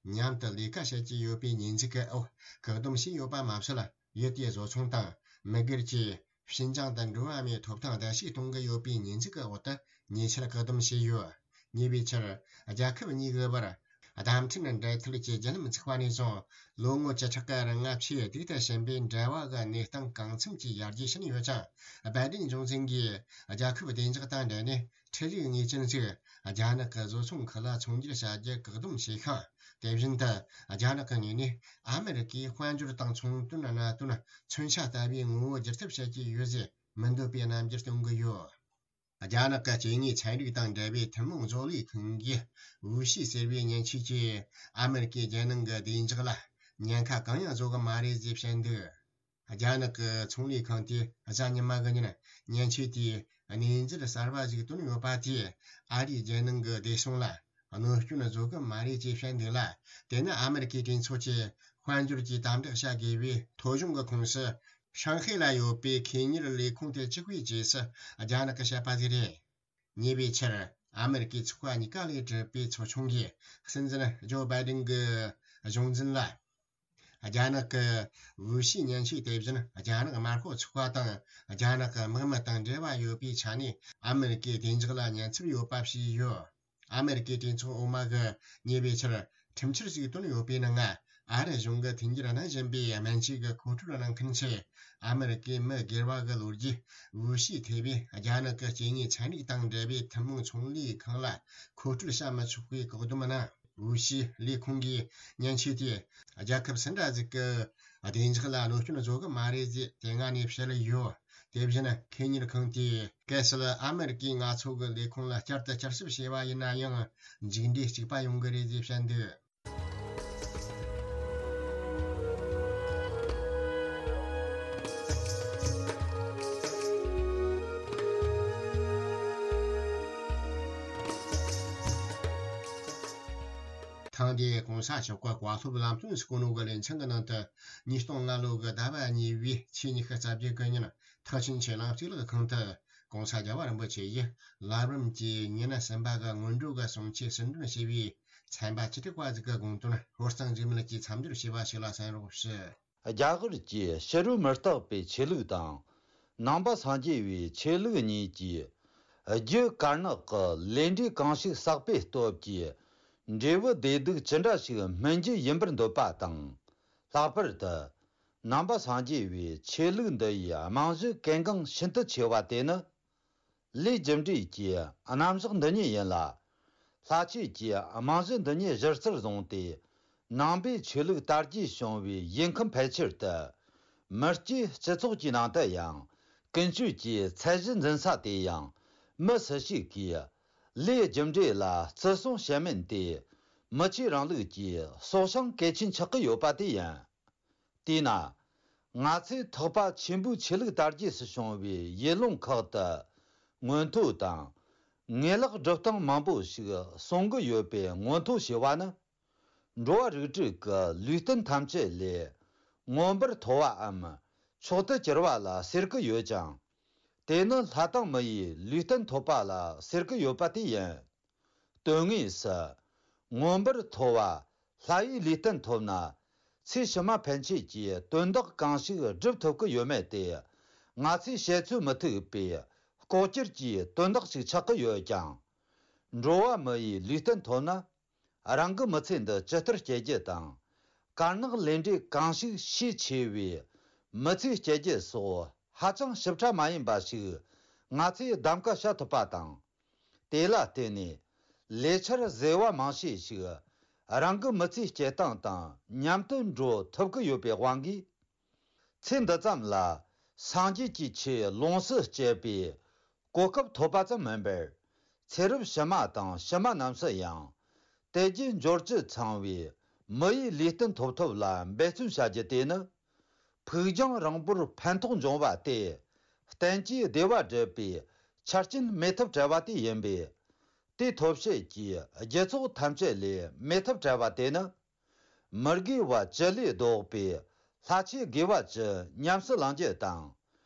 མཉམ་དུ་ལས་ཀ་བྱེད་ཀྱི་ཡོད་པའི་ཉེས་འཛུགས་ཀྱི་འོག་བཀག་སྡོམ་བྱས་ཡོད་པ་མ་ཟད། ཡུལ་དེའི་བཟོ་ཚོང་དང་མི་སྒེར་གྱིས་ཕྱི་འགྱངས་དང་འགྲོ་བ་མིའི་ཐོབ་ཐང་བརྡལ་བཤིག་གཏོང་གི་ཡོད་པའི་ཉེས་འཛུགས་ཀྱི་འོག་ཏུ་ཉེ་ཆར་བཀག་སྡོམ་བྱས་ཡོད། ཉེ་བའི་ཆར་རྒྱལ་ཁབ་གཉིས་ཀྱི་བར་བརྡ་འཕྲིན་འབྲེལ་མཐུད་ཀྱི་བརྒྱུད་ལམ་བཙུགས་པ་ནས་བཟུང་། ལོ་ངོ་བཅུ་ཕྲག་གི་རིང་ང་ཆེས་སྡུག་ཏུ་ཕྱིན་པའི་འབྲེལ་བ་གི་གནས་སྟངས་གང་འཚམ་གྱིས་ཡར་རྒྱས་ཕྱིན་ཡོད་ཀྱང་། བྷའི་ཏིན་གཞུང་འཛིན་གྱིས་རྒྱལ་ཁབ་བདེ་འཇགས་དང་འབྲེལ་ནས་འཕྲུལ་རིག་དངོས་ཅན་ཞིག་རྒྱ་ནག་གི་བཟོ་ཚོང་ཁུལ་ལ་ཚོང་སྒྱུར་བྱ་རྒྱུ་བཀག་སྡོམ་བྱས་ཤིང་། དེ་བཞིན་དུ་རྒྱ་ནག་གི་ངོས་ནས་ཨ་མེ་རི་ཀའི་དཔལ་འབྱོར་དང་ཚོང་དོན་གནད་དོན་མཚོན་ཆ་ལྟ་བུའི་ངོ་བོ་བསྒྱུར་ཐབས་བྱེད་ཀྱི་ཡོད་ཅེས་མི་འདོད་པའི་རྣམ་འགྱུར་སྟོན་གྱི་ཡོད། རྒྱ་ནག་གི་སྐྱེ་དངོས་ཚན་རིག་དང་འབྲེལ་བའི་ཐུན་མོང་བཟོ་ལས་ཁང་གིས་ཝུ་ཤི་ཟེར་བའི་མཉེན་ཆས་ཀྱིས་ཨ་མེ་རི་ཀའི་རྒྱལ་ནང་གི་བདེ་འཇགས་ལ་ཉེན་ཁ་གང་ཡང་བཟོ་གི་མ་རེད་ཅེས་བཤད་འདུག་རྒྱ་ནག་གི་ཚོང་ལས་ཁང་དེས་གཟའ་ཉི་མ་གི་ཉིན་མཉེན་ཆས་དེའི་གནས་ཚུལ་གསར་པ་ཞིག་བཏོན་ཡོད་པ་དེས་ཨ་རིའི་རྒྱལ་ནང་གི་བདེ་སྲུང་ལ་གནོད་སྐྱོན་བཟོ་གི་མ་རེད་ཅེས་བཤད་འདུག་ལ། དེ་ནི་ཨ་མེ་རི་ཀའི་གྲོས་ཚོགས་ཀྱི་དཔལ་འབྱོར་གྱི་དམ་དྲག་བྱ་དགོས་པའི་ཐོ་གཞུང་གི་ཁོངས་སུ། ཧྲང་ཧའེ་ལ་ཡོད་པའི་ཁེ་གཉེར་ལས་ཁུངས་དེ་གཅིག་པུའི་རྗེས་སུ་རྒྱ་ནག་གིས་བཤད་པ་ཞིག་རེད། ཉེ་བའི་ཆར་ཨ་མེ་རི་ཀའི་ཚོགས་པ་གཉིས་ཀ་ལས་གྲུབ་པའི་ཚོགས་ཆུང་གིས་སྲིད་འཛིན་ཇོ་བྷའི་ཏིན་གྱི་གཞུང་འཛིན་ལ། རྒྱ་ནག་གི་ཝུ་ཤི་མཉེན་ཆས་དེ་བཞིན་རྒྱ་ནག་དམར་ཤོག་ཚོགས་པ་དང་རྒྱ་ནག་གི་དམག་མི་དང་འབྲེལ་བ་ཡོད་པའི་ཆ་ནས་ཨ་མེ་རི་ཀའི་བདེ་འཇགས་ལ་ཉེན་ཚབས་ཡོད་པ་བྱས་ཡོད། ཨ་མེ་རི་ཀའི་གྲོས་ཚོགས་འོག་མ་གིས་ཉེ་བའི་ཆར་ཁྲིམས་འཆར་ཞིག་བཏོན་ཡོད་པའི་ནང་། ཨ་རི་གཞུང་གིས་མཐུན་འགྱུར་གནང་བཞིན་པའི་སྨན་བཅོས་ཀྱི་མཁོ་སྤྲོད་གནང་མཁན་ཆེད། ཨ་མེ་རི་ཀའི་མི་སྒེར་བ་གི་ལོ་རྒྱུས་ཝུ་ཤི་ཐེ་བའི་རྒྱ་ནག་གི་སྐྱེ་དངོས་ཚན་རིག་དང་འབྲེལ་བའི་ཐུན་མོང་ཚོང་ལས་ཁང་ལ་མཁོ་སྤྲོད་བྱ་མི་ཆོག་པའི་བཀག་སྡོམ་གནང་། ཝུ་ཤི་ལས་ཁུངས་ཀྱིས་མཉེན་ཆས་དེས་རྒྱལ་ཁབ་སུ་འདྲ་ཞིག་གི་བདེ་འཇགས་ལ་གནོད་སྐྱོན་བཟོ་གི་མ་རེད་ཅེས་དེ་སྔ་ནས་བཤད་ཡོད། དེ་བཞིན་ཁེ་གཉེར་ཁང་དེས་གལ་སྲིད་ཨ་མེ་རི་ཀའི་མངའ་ཚོགས་ཀྱི་ལས་ཁུངས་ལ་བསྐྱར་དུ་བསྐྱར་ཞིབ་བྱས་པ་ཡིན་ན་ཡང་མཇུག་འབྲས་གཅིག་པ་ཡོང་གི་རེད་ཅེས་བཤད་འདུག་ཐེངས་འདིའི་གོང་ས་མཆོག་གི་བཀའ་སློབ་ལམ་སྟོན་སྐུ་ནོ་གི་ལེ་ཚན་གྱི་ནང་དུ། ཉིས་སྟོང་ལྔ་ལོ་གི་ཟླ་བ་གཉིས་པའི་ཚེས་ཉི་ཤུ་རྩ་བརྒྱད་གི་ཉིན། ཐེག་ཆེན་ཆེ་ལང་གཙུག་ལག་ཁང་དུ་༸གོང་ས་༸རྒྱལ་བ་རིན་པོ་ཆེ་ཡིས་ལམ་རིམ་གྱི་ཉི་ཤུ་གསུམ་པ་གི་སྔོན་འགྲོ་གི་གསུང་ཆོས་ཟུར་འདོན་བྱས་པའི་ཚན་པ་བཅུ་དྲུག་པ་ཟིག་གི་དགོངས་དོན་ཧོར་གཙང་འཇིགས་མེད་ཀྱིས་མཚམས་སྦྱོར་བྱས་པ་ཞིག་ལ་གསན་རོགས་ཞུ། རྒྱ་གར་གྱི་ཕྱི་རོལ་མུ་སྟེགས་པའི་ཆོས་ལུགས་དང་། ནང་པ་སངས་རྒྱས་པའི་ཆོས་ལུགས་གཉིས་ཀྱིས་རྒྱུ་དཀར་ནག་གི་ལས་འབྲས་གང་ཞིག་བསགས་པའི་སྟོབས་ཀྱིས་འབྲས་བུ་བདེ་སྡུག་ཅི་འདྲ་ཞིག་སྨིན་རྒྱུ་ཡིན་པར་འདོད་པ་དང་། ལྷག་པར་དུ། ནང་པ་སངས་རྒྱས་པའི་ཆོས་ལུགས་འདི་ཡི་རྨང་གཞི་གལ་འགངས་ཤིན་ཏུ་ཆེ་བ་དེ་ནི། ལས་རྒྱུ་འབྲས་ཀྱི་རྣམ་གཞག་འདི་ཉིད་ཡིན་ལ། ལྷ་ཆོས་ཀྱི་རྨང་གཞི་འདི་ཉིད་གཞིར་རྩར་བཟུང་སྟེ། ནང་པའི་ཆོས་ལུགས་དར་རྒྱས་བྱུང་བའི་ཡུལ་ཁམས་ཕལ་ཆེར་དུ། མི་སྐྱའི་སྤྱི་ཚོགས་ཀྱི་ནང་དུ་ཡང་། ཀུན་སྤྱོད་ཀྱི་ཚད་གཞི་འཛིན་ས་དེ་ཡང་། མི་སུ་ཞིག་གིས། ལས་རྒྱུ་འབྲས་ལ་བརྩི་སྲུང་བྱེད་མིན་ཏེ། མི་ཆོས་རིང་ལུགས་ཀྱི་སྲོག་ཤིང་གལ་ཆེན་ཆགས་ཀྱི་ཡོད་པ་དེ་ཡིན། དེས་ན། ང་ཚོས་ཐེག་པ་ཆེན་པོའི་ཆོས་ལུགས་དར་རྒྱས་སུ་བྱུང་བའི་ཡུལ་ལུང་ཁག་ཏུ་མངོན་མཐོ་དང་། ངེས་ལེགས་སྒྲུབ་སྟངས་མང་པོ་ཞིག་གསུང་གི་ཡོད་པའི་མངོན་མཐོ་ཞེས་པ་ནི། འགྲོ་བ་རིགས་དྲུག་གི་ལུས་རྟེན་ཐམས་ཅད་ལས་མངོན་པར་མཐོ་བའམ་མཆོག་ཏུ་གྱུར་པ་ལ་ཟེར་གྱི་ཡོད་ཅིང་། དེ་ནི་ལྷ་དང་མི་ཡི་ལུས་རྟེན་ཐོབ་པ་ལ་ཟེར་གྱི་ཡོད་པ་དེ་ཡིན། དོན་དངོས་སུ། མངོན་པར་མཐོ་བ་ལྷ་ཡི་ལུས་རྟེན་ཐོབ་ན། ཚེ་ཕྱི་མ་ཕན་ཆད་ཀྱི་དོན་དག་གང་ཞིག་སྒྲུབ་ཐུབ་ཀྱི་ཡོད་མེད་དེ། ང་ཚོས་བཤད་ཚོད་མི་ཐིག་པའི་ལྐོག་གྱུར་གྱི་དོན་དག་ཅིག་ཆགས་ཀྱི་ཡོད་ཀྱང་། འགྲོ་བ་མི་ཡི་ལུས་རྟེན་ཐོབ་ན། རང་གི་མི་ཚེ་འདི་ཇི་ལྟར་སྐྱེལ་རྒྱུ་དང་། དཀར་ནག་ལས་འབྲས་གང་ཞིག་ཤས་ཆེ་བའི་མི་ཚེ་སྐྱེལ་རྒྱུ་སོགས་ཧ་ཅང་ཞིབ་ཕྲ་མ་ཡིན་པ་ཞིག་ང་ཚོས་གདམ་ག་བྱ་ཐུབ་པ་དང་། དེ་ལ་བརྟེན་ནས་ལས་འཆར་བཟོས་པ་མང་ཤས་ཤིག་རང་གི་མི་ཚེ་སྐྱེལ་སྟངས་དང་མཉམ་དུ་འགྲོ་ཐུབ་ཀྱི་ཡོད་པའི་དབང་གིས། ཚེ་འདི་ཙམ་ལ་སངས་རྒྱས་ཀྱི་ཆོས་ལོངས་སུ་སྤྱད་པའི་གོ་སྐབས་ཐོབ་པ་ཙམ་མིན་པར། ཚེ་རབས་ཕྱི་མ་དང་ཕྱི་མ་རྣམས་སུ་ཡང་དལ་བརྒྱད་འབྱོར་བཅུ་ཚང་བའི་མི་ཡི་ལུས་རྟེན་ཐོབ་ཐབས་ལ་འབད་བརྩོན་བྱ་རྒྱུ་དེ་ནི། ཕུགས་རྒྱང་རིང་པོར་ཕན་ཐོགས་འབྱུང་བ་སྟེ། བསྟན་བཅོས་བདེ་བ་སྒྲུབ་པའི་ཆ་རྐྱེན་མེད་ཐབས་བྲལ་བ་དེ་ཡིན་པས། དེ་ཐོབ་བྱེད་ཀྱི་རྒྱུ་ཚོགས་ཐམས་ཅད་ལས་མེད་ཐབས་བྲལ་བ་དེ་ནི། མི་དགེ་བ་བཅུ་ལས་ལྡོག་པའི་ལྷ་ཆོས་དགེ་བ་བཅུ་ཉམས་སུ་བླང་རྒྱུ་དང་།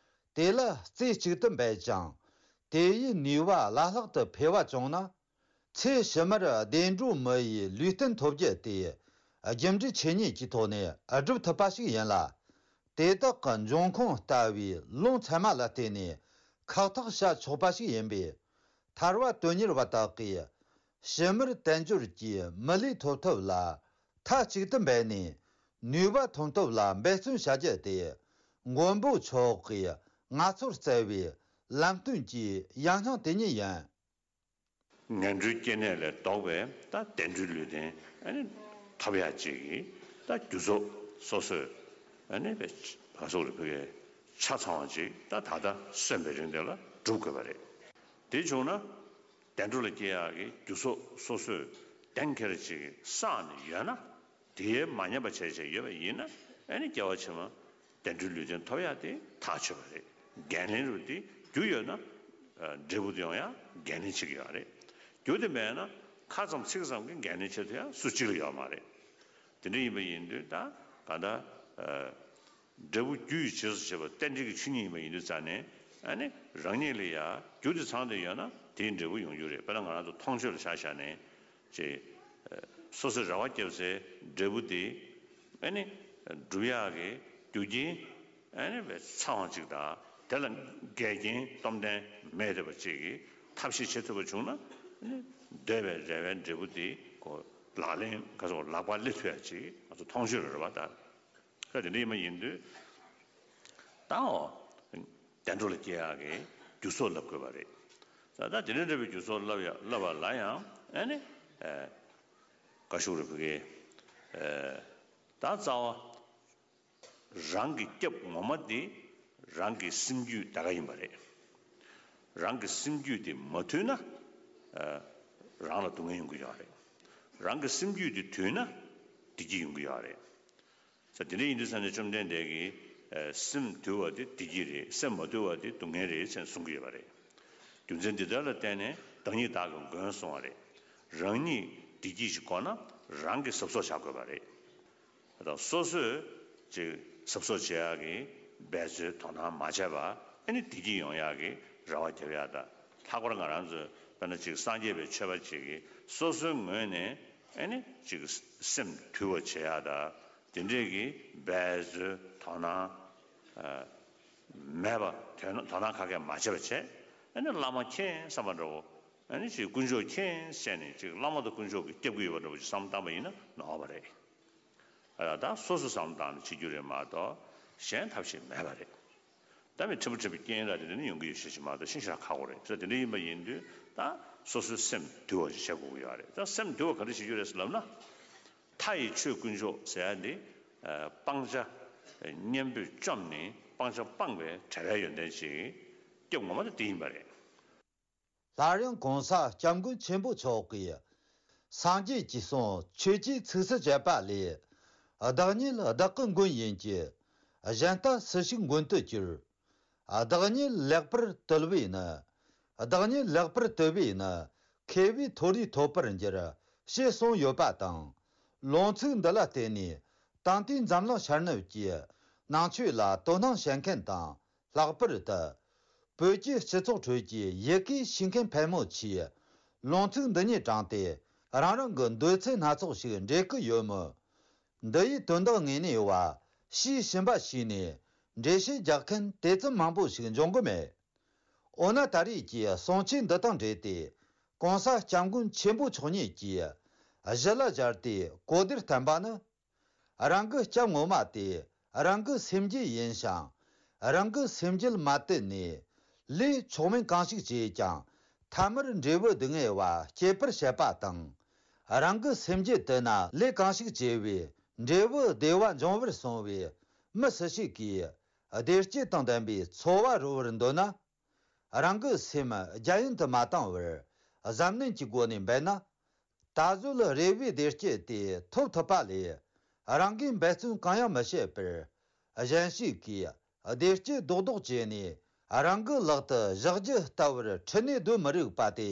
དེ་ལ་རྩེ་གཅིག་ཏུ་འབད་ཅིང་། དེ་ཡི་ནུས་པ་བླ་ལྷག་ཏུ་འཕེལ་བ་བྱུང་ན། ཚེ་ཕྱི་མར་བདེ་འགྲོ་མི་ཡི་ལུས་རྟེན་ཐོབ་རྒྱུ་དེ་རྒྱུ་འབྲས་ཆོས་ཉིད་ཀྱི་ཐོག་ནས་སྒྲུབ་ཐུབ་པ་ཞིག་ཡིན་ལ། དེ་དག་གི་འབྱུང་ཁུངས་ལྟ་བུའི་ལུང་ཚད་མ་ལ་བརྟེན་ནས་ཁག་ཐེག་བྱ་ཆོག་པ་ཞིག་ཡིན་པས། ཐར་པ་དོན་གཉེར་བ་དག་གིས་ཕྱི་མར་དལ་འབྱོར་གྱི་མི་ལུས་ཐོབ་ཐབས་ལ་མཐའ་གཅིག་ཏུ་འབད་ནས་ནུས་པ་ཐོན་ཐབས་ལ་འབད་བརྩོན་བྱ་རྒྱུ་དེ་མགོན་པོ་མཆོག་གི་ང་ཚོར་སྩལ་བའི་ལམ་སྟོན་གྱི་ཡང་སྙིང་དེ་ཉིད་ཡིན། ངན་འགྲོའི་སྐྱེ་གནས་ལས་ལྡོག་པའི་ད་བདེ་འགྲོའི་ལུས་རྟེན་ཨ་ནི་ཐོབ་ཡག་ཅིག་གི་ད་རྒྱུ་ཚོགས་སོ་སོས་ཨ་ནི་བས་བ་སོགས་ལ་ཕུལ་བའི་ཆ་ཚང་བ་ཅིག་ད་ད་ལྟ་གསོན་པའི་རིང་དེ་ལ་སྒྲུབ་དགོས་པ་རེད། དེ་བྱུང་ན་བདེ་འགྲོ་ལ་སྐྱེ་ཡག་གི་རྒྱུ་ཚོགས་སོ་སོས་གཏན་འཁེལ་ཅིག་བསགས་ནས་ཡོད་ན། དེའི་མ་ཉམས་པ་བྱས་བྱས་ཡོད་པ་ཡིན་ན་ཨ་ནི་སྐྱེ་བ་ཕྱི་མ་བདེ་འགྲོའི་ལུས་རྟེན་ཐོབ་ཡག་དེ་ཐག་ཆོད་པ་རེད། འགན་ལེན་རུ་དེ་རྒྱུ་ཡོད་ན་འབྲས་བུ་དེ་ཡོང་ཡག་འགན་ལེན་བྱེད་ཀྱི་ཡོད་རེད། རྒྱུ་དེ་མེད་ན་ཁ་ཙམ་ཚིག་ཙམ་གྱི་འགན་ལེན་བྱེད་ཐུབ་ཡག་སུ་གཅིག་ལ་ཡོད་མ་རེད། དེ་འདྲ་ཡིན་པ་ཡིན་དུས་ད་ག་ད། འབྲས་བུ་རྒྱུ་ཡི་རྗེས་སུ་བྱེད་པ་རྟེན་འབྲེལ་གྱི་ཆོས་ཉིད་ཡིན་པ་ཡིན་དུས་ཙང་ནས་ཨ་ནི་རང་ཉིད་ལ་ཡ་རྒྱུ་དེ་ཚང་དུ་ཡོད་ན་དེའི་འབྲས་བུ་ཡོང་རྒྱུ་རེད། དཔེར་ན་ང་རང་ཚོ་མཐོང་ཆོས་ལ་ཆ་བཞག་ནས་ཅེས་སོ་སོའི་རེ་བ་བརྒྱབ་སའི་འབྲས་བུ་དེ་ཨ་ནི་སྒྲུབ་ཡག་གི་རྒྱུ་རྐྱེན་ཨ་ནི་བས་ཚང་བ་ཅིག་དང་དེ་ལ་འགལ་རྐྱེན་སྟོབས་ལྡན་མེད་བསྡད་པ་ཅིག་གིས་ཐབས་ཤེས་བྱེད་ཐུབ་པ་བྱུང་ན་ཨ་ནི་འདོད་པའི་རེ་བའི་འབྲས་བུ་དེ་གོ་ལག་ལེན་ག་ཚོད་ལག་པར་སླེབས་ཐུབ་ཡག་ཅིག་ང་ཚོ་མཐོང་ཆོས་ལ་རེ་བ་དང་། ད་དེ་འདྲ་ཡིན་པ་ཡིན་དུས། ད་འོ། བདེ་འགྲོ་ལ་སྐྱེ་ཡག་གི་རྒྱུ་ཚོགས་བསླབ་དགོས་པ་རེད། ད་ད་དེ་འདྲ་འདྲ་བའི་རྒྱུ་ཚོགས་བསླབ་ཡ་བསླབ་པ་ལ་ཡང་ཨ་ནི། ཨེ། བཀའ་ཤོག་རེ་ཕུལ་གི། ཨེ། ད་རྩ་བ། རང་གི་སྐྱབས་ངོ་མ་དེ་རང་གི་སེམས་རྒྱུད་དེ་ག་ཡིན་པ་རེད། རང་གི་སེམས་རྒྱུད་དེ་མ་དུལ་ན། ཨེ། རང་ལ་སྡུག་བསྔལ་ཡོང་གི་ཡོད་རེད། རང་གི་སེམས་རྒྱུད་དེ་དུལ་ན་བདེ་སྐྱིད་ཡོང་གི་ཡོད་རེད། ས་དེ་འདྲ་ཡིན་དུས་ས་ནས་བཅོམ་ལྡན་འདས་ཀྱིས་སེམས་དུལ་བ་དེ་བདེ་སྐྱིད་རེད། སེམས་མ་དུལ་བ་དེ་སྡུག་བསྔལ་རེད་ཅེས་གསུང་གི་ཡོད་པ་རེད། རྒྱུ་མཚན་འདི་ལྟར་ལ་བརྟེན་ནས་བདག་ཉིད་བདག་གི་མགོན་གསུང་བ་རེད། རང་ཉིད་བདེ་སྐྱིད་ཅིག་དགོས་ན་རང་གིས་གཟབ་གཟབ་བྱ་དགོས་པ་རེད། ད་སོ་སོས་ཅིག་གཟབ་གཟབ་བྱེད་ཡག་གི་འབད་རྩོལ་དོ་སྣང་མ་བྱས་པ། ཨ་ནི་བདེ་སྐྱིད་ཡོང་ཡག་གི་རེ་བ་རྒྱབ་ཡག་དང་། ལྷག་པར་ང་རང་ཚོས་དཔེར་ན་ཅིག་སངས་རྒྱས་པའི་ཆོས་པ་ཅིག་གིས་སོ་སོའི་ངོས་ནས་ཨ་ནི་ཅིག་སེམས་དུལ་བ་བྱེད་ཡག་དང་། དེ་འདྲས་ཀྱི་འབད་རྩོལ་དོ་སྣང་ཨ་མེད་པ། དོ་སྣང་དོ་སྣང་ག་གེ་མ་བྱེད་པ་བྱས། ཨ་ནི་བླ་མ་མཁྱེན་བསམ་པ་འདྲ་བོ། ཨ་ནི་ཅིག་དཀོན་མཆོག་མཁྱེན་བྱས་ནས་ཅིག་བླ་མ་དང་དཀོན་མཆོག་གིས་སྐྱོབ་ཀྱི་ཡོད་པ་འདྲ་བོ་ཅིག་བསམ་བློ་བཏང་པ་ཡིན་ན་ནོར་བ་རེད། ཨ་ད་སོ་སོ་བསམ་བློ་བཏང་ནས་བྱེད་རྒྱུ་རེད་མ་གཏོགས་གཞན་ཐབས་ཤེས་མེད་པ་རེད། ད་མི་ཕྲན་བུ་ཕྲན་བུ་རྐྱེན་ར་དེ་འདྲ་ནི་ཡོང་གི་ཡོད་ཤེས་ཀྱི་མ་གཏོགས་ཤིན་ཤ་ཁག་པོ་རེད། ས་དེ་འདྲ་ཡིན་པ་ཡིན་དུས་ད་སོ་སོའི་སེམས་དུལ་བ་ཞིག་བྱེད་དགོས་ཀྱི་ཡོད་རེད། ད་སེམས་དུལ་བ་ག་འདྲ་བྱེད་རྒྱུ་རེད་ཟེར་ལབ་ན། མཐའ་ཡི་ཆོས་དཀོན་མཆོག་ཟེར་ཡ་འདི་ཨ་སྤང་བྱ་གཉེན་པོས་བཅོམ་ནས་སྤང་བྱ་སྤངས་པའི་བྲལ་བའི་ཡོན་ཏན་ཅིག་སྐྱོབ་ངོ་མ་དེ་དེ་ཡིན་པ་རེད། སླར་ཡང་གོང་ས་སྐྱབས་མགོན་ཆེན་པོ་མཆོག་གིས། སངས་རྒྱས་ཀྱི་གསུང་ཆོས་ཀྱི་ཚིགས་སུ་བཅད་པ་ལས། བདག་ཉིད་བདག་གི་མགོན་ཡིན་གྱི། གཞན་ལྟ་སུ་ཞིག་མགོན་དུ་གྱུར། བདག་ཉིད་ལེགས་པར་དུལ་བས་ནི། བདག་ཉིད་ལེགས་པར་དུལ་བས་ནི། མཁས་པའི་མཐོ་རིས་ཐོབ་པར་འགྱུར། ཞེས་གསུངས་ཡོད་པ་དང་། ལུང་ཚིག་འདི་ལ་བརྟེན་ནས་ད་ལྟའི་འཛམ་གླིང་ཤར་ནུབ་ཀྱི་ནང་ཆོས་ལ་དོ་སྣང་བྱེད་མཁན་དང་། ལྷག་པར་དུ། བོད་ཀྱི་སྤྱི་ཚོགས་ཁྲོད་ཀྱི་ཡི་གེ་ཤེས་མཁན་ཕལ་མོ་ཆེས་ལུང་ཚིག་འདི་ཉིད་དྲངས་ཏེ་རང་རང་གི་འདོད་ཚུལ་སྣ་ཚོགས་ཤིག་འགྲེལ་གི་ཡོད་མོད། འདི་ཡི་དོན་དག་དངོས་གནས་པ་ཞེས་ཞུམ་པ་ཞིག་ནས་འགྲེལ་བཤད་རྒྱག་མཁན་དེ་ཙམ་མང་པོ་ཞིག་འབྱུང་གི་མེད། འོ་ན་ད་རེས་ཀྱི་གསུང་ཆོས་འདི་དང་འབྲེལ་ཏེ་གོང་ས་སྐྱབས་མགོན་ཆེན་པོ་མཆོག་ཉིད་ཀྱིས་གཞི་ལ་སྦྱར་ཏེ་གོ་བདེར་བསྟན་པ་ནི། རང་གི་སྐྱབས་ངོ་མ་དེ་རང་གི་སེམས་རྒྱུད་ཡིན་ཞིང་། རང་གི་སེམས་རྒྱུད་མ་དུལ་ནས་ལས་མཆོག་དམན་གང་ཞིག་བྱས་ཀྱང་ཐ་མར་འབྲས་བུ་སྡུག་བསྔལ་བ་སྐྱེད་པར་བྱེད་པ་དང་། རང་གི་སེམས་རྒྱུད་དུལ་ན་ལས་གང་ཞིག་བྱས་པའི་འབྲས་བུ་བདེ་བ་འབྱུང་བར་གསུངས་པས། མི་སུ་ཞིག་གིས་བདེ་སྐྱིད་དང་ལྡན་པའི་འཚོ་བ་རོལ་བར་འདོད་ན། རང་གི་སེམས་རྒྱ་ཡན་དུ་མ་བཏང་བར་གཟབ་ནན་གྱི་སྒོ་ནས་འབད་ན། ད་གཟོད་རེ་བའི་བདེ་སྐྱིད་དེ་ཐོབ་ཐུབ་པ་ལས། རང་གིས་འབད་བརྩོན་གང་ཡང་མི་བྱེད་པར། གཞན་ཞིག་གིས་བདེ་སྐྱིད་རྡོག་རྡོག་བྱས་ནས་རང་གི་ལག་ཏུ་བཞག་རྒྱུ་ལྟ་བུར་ཁྲིད་ནས་སྡོད་མི་རིགས་པ་དེ།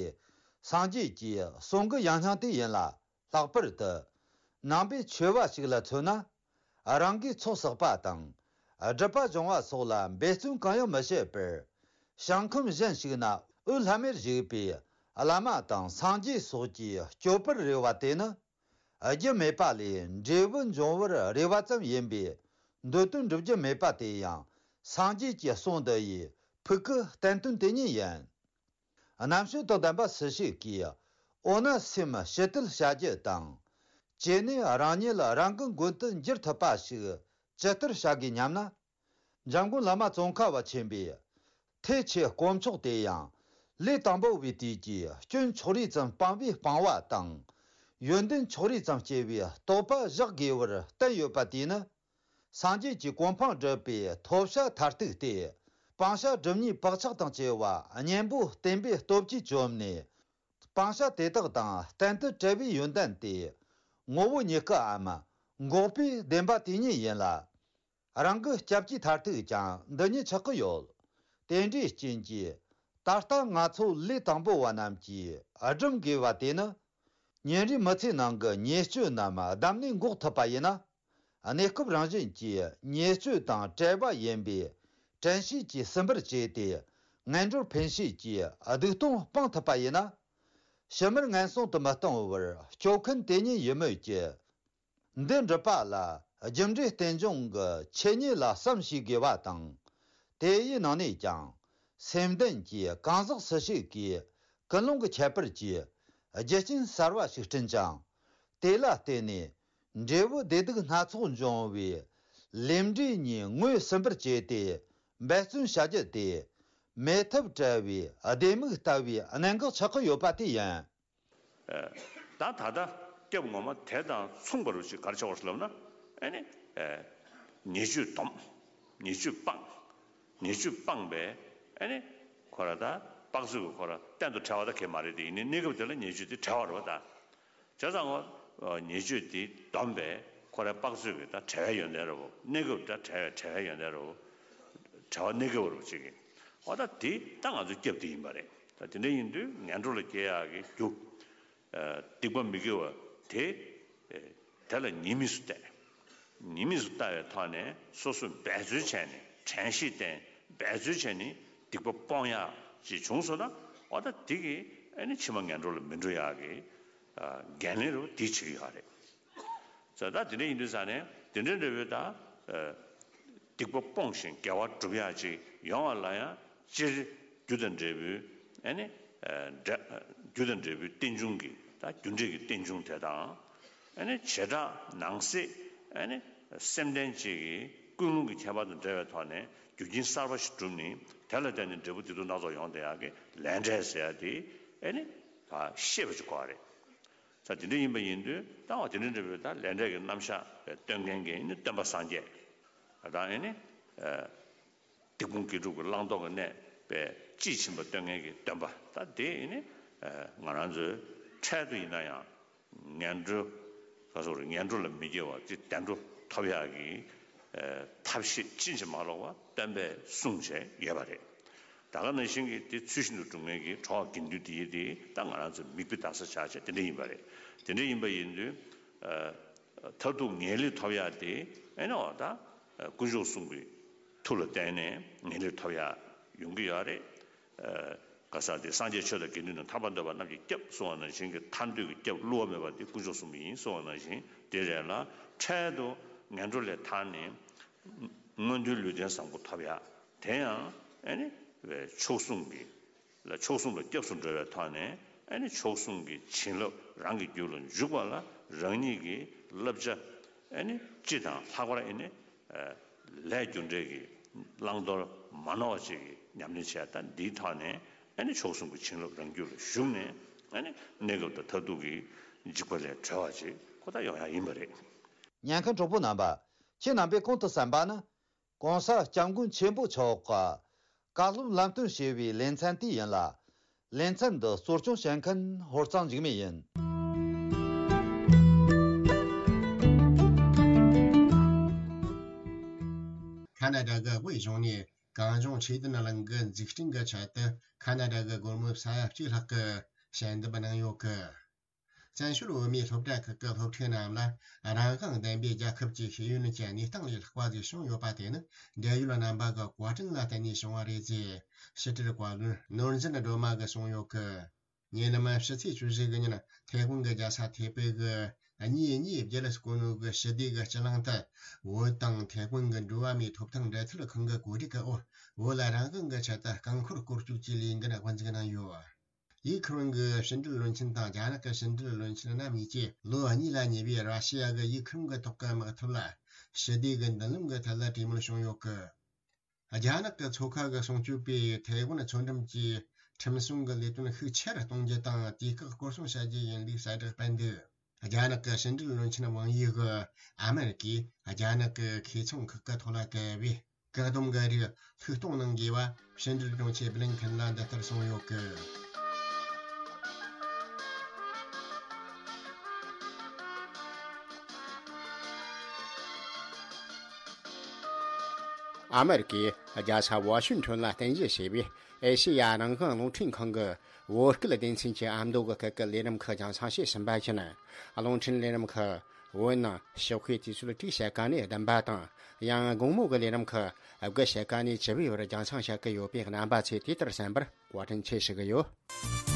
སངས་རྒྱས་ཀྱི་གསུང་གི་ཡང་སྙིང་དེ་ཡིན་ལ། ལྷག་པར་དུ། ནང་པའི་ཆོས་པ་ཞིག་ལ་མཚོན་ན། རང་གིས་ཚོགས་བསགས་པ་དང་། སྒྲུབ་པ་སྦྱོང་བ་སོགས་ལ་འབད་བརྩོན་གང་ཡང་མི་བྱེད་པར། ཞིང་ཁམས་གཞན་ཞིག་ན་འོད་ལྷམ་མེར་བཞུགས་པའི་བླ་མ་དང་སངས་རྒྱས་སོགས་ཀྱི་སྐྱོབ་པར་རེ་བ་དེ་ནི། རྒྱུ་མེད་པ་ལས་འབྲས་བུ་འབྱུང་བར་རེ་བ་ཙམ་ཡིན་པས། འདོད་དོན་འགྲུབ་རྒྱུ་མེད་པ་དེ་ཡང་སངས་རྒྱས་ཀྱི་གསུང་འདི་ཡི་ཕུགས་ཀྱི་བསྟན་དོན་དེ་ཉིད་ཡིན། རྣམ་དཔྱོད་དང་ལྡན་པ་སུ་ཞིག་གིས། འོ་ན་སེམས་ཞི་དུལ་བྱ་རྒྱུ་དང་། བྱས་ནས་རང་ཉིད་རང་གི་མགོན་དུ་འགྱུར་ཐུབ་པ་ཞིག་ཇི་ལྟར་བྱ་དགོས་སྙམ་ན། འཇམ་མགོན་བླ་མ་ཙོང་ཁ་པ་ཆེན་པོས། ཐེག་ཆེན་དཀོན་མཆོག་དེ་ཡང་། ལས་དང་པོ་བའི་དུས་ཀྱི་སྐྱོན་ཕྱོགས་རིས་ཙམ་སྤངས་པའི་སྤང་བ་དང་། ཡོན་ཏན་ཕྱོགས་རིས་ཙམ་སྐྱེ་བའི་རྟོགས་པ་བཞག་དགོས་པར་བསྟན་ཡོད་པ་དེས་ནི། སངས་རྒྱས་ཀྱི་གོ་འཕང་སྒྲུབ་པའི་ཐོབ་བྱ་མཐར་ཐུག་སྟེ། སྤང་བྱ་སྒྲུབ་གཉིས་བག་ཆགས་དང་བཅས་པ་གཉེན་པོ་བསྟེན་པའི་སྟོབས་ཀྱིས་བཅོམ་ནས། སྤང་བྱ་དེ་དག་དང་གཏན་དུ་བྲལ་བའི་ཡོན་ཏན་ཏེ། ངོ་བོ་ཉིད་སྐུའམ་འགོག་པའི་བདེན་པ་དེ་ཉིད་ཡིན་ལ། རང་གི་སྐྱབས་ཀྱི་མཐར་ཐུག་ཀྱང་འདི་ཉིད་ཆགས་ཀྱི་ཡོད། དེ་འདྲའི་རྐྱེན་གྱིས་ད་ལྟ་ང་ཚོ་ལས་དང་པོ་བ་རྣམས་ཀྱིས་སྒྲུབ་དགོས་པ་དེ་ནི། ཉིན་རེའི་མི་ཚེའི་ནང་གི་ཉེས་སྤྱོད་རྣམས་བསྡམས་ནས་འགོག་ཐུབ་པ་ཡིན་ན། གནས་སྐབས་རང་བཞིན་གྱིས་ཉེས་སྤྱོད་དང་བྲལ་བ་ཡིན་པས། དྲན་ཤེས་ཀྱིས་ཟིན་པར་བྱས་ཏེ། ངན་འགྲོར་འཕེན་ཤེས་ཀྱིས་སྡིག་ལྟུང་སྤང་ཐུབ་པ་ཡིན་ན། ཕྱི་མར་ངན་སོང་དུ་མི་ལྟུང་བར་སྐྱོབ་མཁན་དེ་ཉིད་ཡིན་མོད་ཀྱི། འདི་འགྲུབ་པ་ལ་རྒྱུ་འབྲས་རྟེན་འབྱུང་གི་ཆོས་ཉིད་ལ་བསམ་ཤེས་དགོས་པ་དང་། དེ་ཡི་ནང་ནས་ཀྱང་། སེམས་ལྡན་གྱི་གང་ཟག་སུ་ཞིག་གིས་ཀུན་སློང་གི་ཁྱད་པར་གྱིས་རྒྱུ་རྐྱེན་གསར་བ་ཞིག་བསྐྲུན་ཅིང་། དེ་ལ་བརྟེན་ནས་འབྲས་བུ་བདེ་སྡུག་སྣ་ཚོགས་འབྱུང་བའི་ལས་འབྲས་གཉིས་ངོས་ཟིན་པར་བྱས་ཏེ་འབད་བརྩོན་བྱ་རྒྱུ་དེ། མེད་ཐབས་བྲལ་བའི་ལྡེ་མིག་ལྟ་བུའི་གནད་འགག་ཆགས་ཀྱི་ཡོད་པ་དེ་ཡིན། ད་ད་ལྟ་སྐྱབས་ངོ་མ་དེ་དང་མཚུངས་པ་རུ་ཅིག་ག་རེ་ཆགས་པ་རེད་ལབ་ན། ཨ་ནི། ཉེས་སྤྱོད་སྡོམ། ཉེས་སྤྱོད་སྤངས། ཉེས་སྤྱོད་སྤངས་པས་ཨ་ནི། ཁོ་ར་ད་དཔག་ཚོད་ཀྱི་ཁོ་ར་གཏན་དུ་བྲལ་བ་ད་གས་མ་རེད་དེ། ཡིན་ནའི་གནས་སྐབས་དེ་ལ་ཉེས་སྤྱོད་དེ་བྲལ་བ་རེད་པ་ད། བྱས་ཙང་ངོ་། ཉེས་སྤྱོད་དེ་སྡོམ་པས་ཁོ་རའི་དཔག་ཚོད་ཀྱི་ད་བྲལ་བའི་ཡོན་ཏན་རེད་པ། གནས་སྐབས་ད་བྲལ་བའི་བྲལ་བའི་ཡོན་ཏན་རེད་པ། བྲལ་བ་གནས་སྐབས་རེད་པ་ཅིག་གི། འོ་ད་དེ་ད་ང་ཚོའི་སྐྱབས་དེ་ཡིན་པ་རེད། ད་དེ་འདྲ་ཡིན་དུས་ངན་འགྲོ་ལ་སྐྱེ་ཡག་གི་རྒྱུ། སྡིག་པ་མི་དགེ་བ་དེ། དེ་ལ་ཉེས་དམིགས་སུ་བལྟས། ཉེས་དམིགས་སུ་ལྟ་བའི་ཐོག་ནས་སོ་སོས་འབད་རྩོལ་བྱས་ནས། དྲན་ཤེས་བསྟེན། འབད་རྩོལ་བྱས་ནས་ སྡིག་པ་སྤོང་ཡག་ཅིག་བྱུང་སོང་ན། འོ་ད་དེ་གིས་ཨ་ནི་ཕྱི་མ་ངན་འགྲོ་ལ་མི་འགྲོ་ཡག་གི་ཨ་འགན་ལེན་རུ་དེ་བྱེད་ཀྱི་ཡོད་རེད། ད་ད་དེ་འདྲ་ཡིན་དུས་ཙང་ནས་དེ་འདྲ་འདྲ་བོའི་ད་ཨ་སྡིག་པ་སྤོང་ཞིང་དགེ་བ་སྒྲུབ་ཡག་ཅིག་ཡོང་བ་ལ་ཡང་སྤྱིར་རྒྱུ་དང་འབྲས་བུའི་ཨ་ནི་ཨ་འབྲས་རྒྱུ་དང་འབྲས་བུའི་རྟེན་འབྱུང་གི་ད་རྒྱུ་འབྲས་ཀྱི་རྟེན་འབྱུང་དེ་དང་། ཨ་ནི་བྱེ་བྲག་ནང་གསེས་ཨ་ནི་སེམས་ལྡན་གཅིག་གི་ཀུན་སློང་གི་ཁྱད་པར་དང་འབྲེལ་བའི་ཐོག་ནས་རྒྱུ་རྐྱེན་གསར་པ་ཞིག་བསྒྲུབས་ནས་དེ་ལ་བརྟེན་ནས་འབྲས་བུ་བདེ་སྡུག་སྣ་ཚོགས་ཡོང་བསྡད་ཡག་གི་ལས་འབྲས་ཟེར་ཡག་དེ་ཨ་ནི་ད་ཤེས་པ་ཅིག་དགོས་པ་རེད། ད་དེ་འདྲ་ཡིན་པ་ཡིན་དུས་ད་འོ་དེ་འདྲ་འདྲ་བའི་ད་ལས་འབྲས་ཀྱི་རྣམ་གཞག་སྟོན་མཁན་གྱི་ཨ་ནི་སྟོན་པ་སངས་རྒྱས་ད་ཨ་ནི་ཨ། སྡིག་སྤོང་དགེ་སྒྲུབ་ཀྱི་བླང་དོར་གྱི་གནས་པའི་དཔྱིས་ཕྱིན་པ་སྟོན་མཁན་གྱི་སྟོན་པ་ད་དེ་ནི་ང་རང་ཚོའི་འཕྲལ་དུ་ཡིན་ན་ཡང་ངན་འགྲོ་ག་སོགས་རེད། ངན་འགྲོ་ལ་མི་སྐྱེ་བ་དེ་བདེ་འགྲོ་ཐོབ་ཡག་གི་ཐབས་ཤེས་ཕྱིན་ཅི་མ་ལོག་པ་སྟོན་པས་གསུངས་བྱས་ཡོད་པ་རེད། ད་ག་ནང་བཞིན་གྱི་དེ་ཚུལ་བཞིན་དུ་སྒྲུབ་མཁན་གྱི་གྲོགས་དགེ་འདུན་དེ་ཡི་དེ་ད་ང་རང་ཚོའི་མིག་དཔེ་ལྟ་ས་ཆགས་བྱས་དེ་འདྲ་ཡིན་པ་རེད། དེ་འདྲ་ཡིན་པ་ཡིན་དུས། མཐར་ཐུག་ངེས་ལེགས་ཐོབ་ཡག་དེ་ཨེ་ནི་འོ་ད་དཀོན་མཆོག་གསུམ་གྱི་མཐུ་ལ་བརྟེན་ནས་ངེས་ལེགས་ཐོབ་ཡག་ཡོང་གི་ཡོད་རེད། ག་ས་དེ་སངས་རྒྱས་ཆོས་དང་དགེ་འདུན་དང་ཐར་པ་འདོད་པ་རྣམས་ཀྱི་སྐྱབས་གསུང་བ་ནང་བཞིན་གྱི་ཐར་འདོད་ཀྱི་སྐྱབས་བསླུ་བ་མེད་པ་དེ་དཀོན་མཆོག་གསུམ་ཡིན་གསུང་བ་ནང་བཞིན་དེ་རེད་ལ། འཕྲལ་དུ་ངན་འགྲོ་ལས་ཐར་ནས་མངོན་མཐོའི་ལུས་རྟེན་བཟང་པོ་ཐོབ་ཡག་དེ་ཡང་ཨེ་ནི་མཆོག་གསུམ་གྱི་ལ་མཆོག་གསུམ་ལ་སྐྱབས་སུ་འགྲོ་བའི་ཐོག་ནས་ཨ་ནི་མཆོག་གསུམ་གྱི་བྱིན་རླབས་རང་གི་རྒྱུད་ལ་འཇུག་པ་ལ་རང་ཉིད་ཀྱི་བསླབ་བྱ་ཨ་ནི་སྤྱི་དང་ལྷག་པར་ཨ་ནི་ལས་རྒྱུ་འབྲས་ཀྱི་བླང་དོར་མ་ནོར་བ་ཅིག་གི་ཉམས་ལེན་བྱས། ད་འདིའི་ཐོག་ནས་ཨ་ནི་མཆོག་གསུམ་གྱི་བྱིན་རླབས་རང་རྒྱུད་ལ་ཞུགས་ནས་ཨ་ནི་གནས་སྐབས་དང་མཐར་ཐུག་གི་འཇིགས་པ་ལས་གྲོལ་བ་ཅིག་ཁོ་ཐག་ཡོང་ཡག་ཡིན་པ་རེད། ཉན་མཁན་གྲོགས་པོ་རྣམ་པ། ཁྱེད་རྣམ་པས་གོང་དུ་གསན་པ་ནི། གོང་ས་སྐྱབས་མགོན་ཆེན་པོ་མཆོག་གི་བཀའ་སློབ་ལམ་སྟོན་ཞེས་པའི་ལེ་ཚན་དེ་ཡིན་ལ། ལེ་ཚན་འདི་གཙོ་སྐྱོང་བྱེད་མཁན་ཧོར་གཙང་འཇིགས་མེད་ཡིན། ཁ་ན་ཌ་གི་དབུས་གཞུང་ནས་གངས་ལྗོངས་ཆོས་ལྡན་གླིང་གི་འཛུགས་སྐྲུན་གྱི་ཆེད་དུ་ཁ་ན་ཌ་གི་སྒོར་མོ་ས་ཡ་གཅིག་ལྷག་གི་ཞལ་འདེབས་གནང་ཡོད་གི། བཙན་བྱོལ་བོད་མིའི་སློབ་གྲྭ་ཁག་གི་སློབ་ཕྲུག་རྣམས་ལ་རང་དབང་ལྡན་པའི་རྒྱལ་ཁབ་ཀྱི་ཤེས་ཡོན་གྱི་གནས་སྟངས་ལས་ལྷག་པ་ཞིག་བྱུང་ཡོད་པ་དེ་ནི་འབྲེལ་ཡོད་རྣམ་པ་གི་བཀའ་དྲིན་ལ་བརྟེན་ནས་བྱུང་བ་རེད་ཅེས་ཕྱི་དྲིལ་བཀའ་བློན་ནོར་འཛིན་སྒྲོལ་མ་གིས་གསུངས་ཡོད་གི། ཉེ་ལམ་ཕྱི་ཚེས་བཅུ་བཞི་གི་ཉིན་ཐའེ་ཝན་གྱི་རྒྱལ་ས་ཐའེ་པེ་གི་གཉིས་གཉིས་བརྒྱད་ལ་སྐོར་ནོ་གི་ཞི་བདེ་གི་སྤྱི་གླིང་དུ་བོད་དང་ཐའེ་ཝན་གྱི་འགྲོ་བ་མིའི་ཐོབ་ཐང་འབྲེལ་མཐུད་ཁང་གི་གོ་སྒྲིག་གི་འོག་བོད་ལ་རང་དབང་གི་ཆེད་དུ་རྐང་འཁོར་སྐོར་སྐྱོད་ཀྱི་ལས་འགུལ་དབུ་འཛུགས་གནང་ཡོད། ཡུ་ཁུ་རེན་གྱི་ཕྱི་འབྲེལ་བློན་ཆེན་དང་རྒྱ་ནག་གི་ཕྱི་འབྲེལ་བློན་ཆེན་རྣམ་གཉིས་ཀྱིས་ལོ་གཉིས་ལ་ཉེ་བའི་ར་ཤི་ཡ་གི་ཡུ་ཁུ་རེན་གྱི་ཐོག་གི་དམག་འཐབ་ལ་ཞི་བདེ་གི་མདུན་ལམ་གྱི་ཐད་ལ་གྲོས་མོལ་བྱུང་ཡོད་གི། རྒྱ་ནག་གི་མཚོ་ཁ་གི་སྲུང་སྐྱོབ་པས་ཐའེ་ཝན་མཚོ་འགྲམ་གྱི་ཁྲིམས་སྲུང་གི་ལས་དོན་ཤུགས་ཆེ་རུ་གཏོང་རྒྱུ་དང་། དུས་བཀག་སྐོར་སྲུང་བྱ་རྒྱུ་ཡིན་ལུགས་གསལ་བསྒྲགས་སྤེལ་འདུག་རྒྱ་ནག་གི་ཕྱི་འབྲེལ་བློན་ཆེན་ཝང་ཡི་གིས་ཨ་མེ་རི་ཀས་རྒྱ་ནག་གི་ཁེ་ཚོང་ཁག་གི་ཐོག་ལ་བཀལ་བའི་བཀག་སྡོམ་གྱི་རིགས་ལྷུག་གཏོང་གནང་དགོས་པ་ཕྱི་འབྲེལ་དྲུང་ཆེ་བྷི་ལིན་ཁེན་ལ་འདི་ལྟར་གསུངས་ཡོད་གི། ཨ་མེ་རི་ཀས་རྒྱལ་ས་ཝ་ཤིང་ཊོན་ལ་རྟེན་གཞི་བྱས་པའི་ཨེ་ཤེ་ཡ་རང་དབང་རླུང་འཕྲིན་ཁང་གི་བོད་སྐད་སྡེ་ཚན་གྱི་ཨ་མདོ་གི་སྐད་ཀྱི་ལས་རིམ་ཁག་རྒྱང་སྲིང་བྱས་ཟིན་པ་བཞིན། རླུང་འཕྲིན་ལས་རིམ་ཁག་བོད་ནང་ཞོགས་ཀའི་དུས་ཚོད་དྲུག་ཕྱེད་ཀ་ནས་བདུན་པ་དང་། ཡང་དགོང་མོ་གི་ལས་རིམ་ཁག་དགུ་ཕྱེད་ཀ་ནས་བཅུ་པའི་བར་རྒྱང་སྲིང་བྱེད་ཀྱི་ཡོད་པས། རྣམ་པ་ཚོས་དེ་ལྟར་གསན་པར་བཀའ་དྲིན་ཆེ་ཞུ་གི་ཡོད།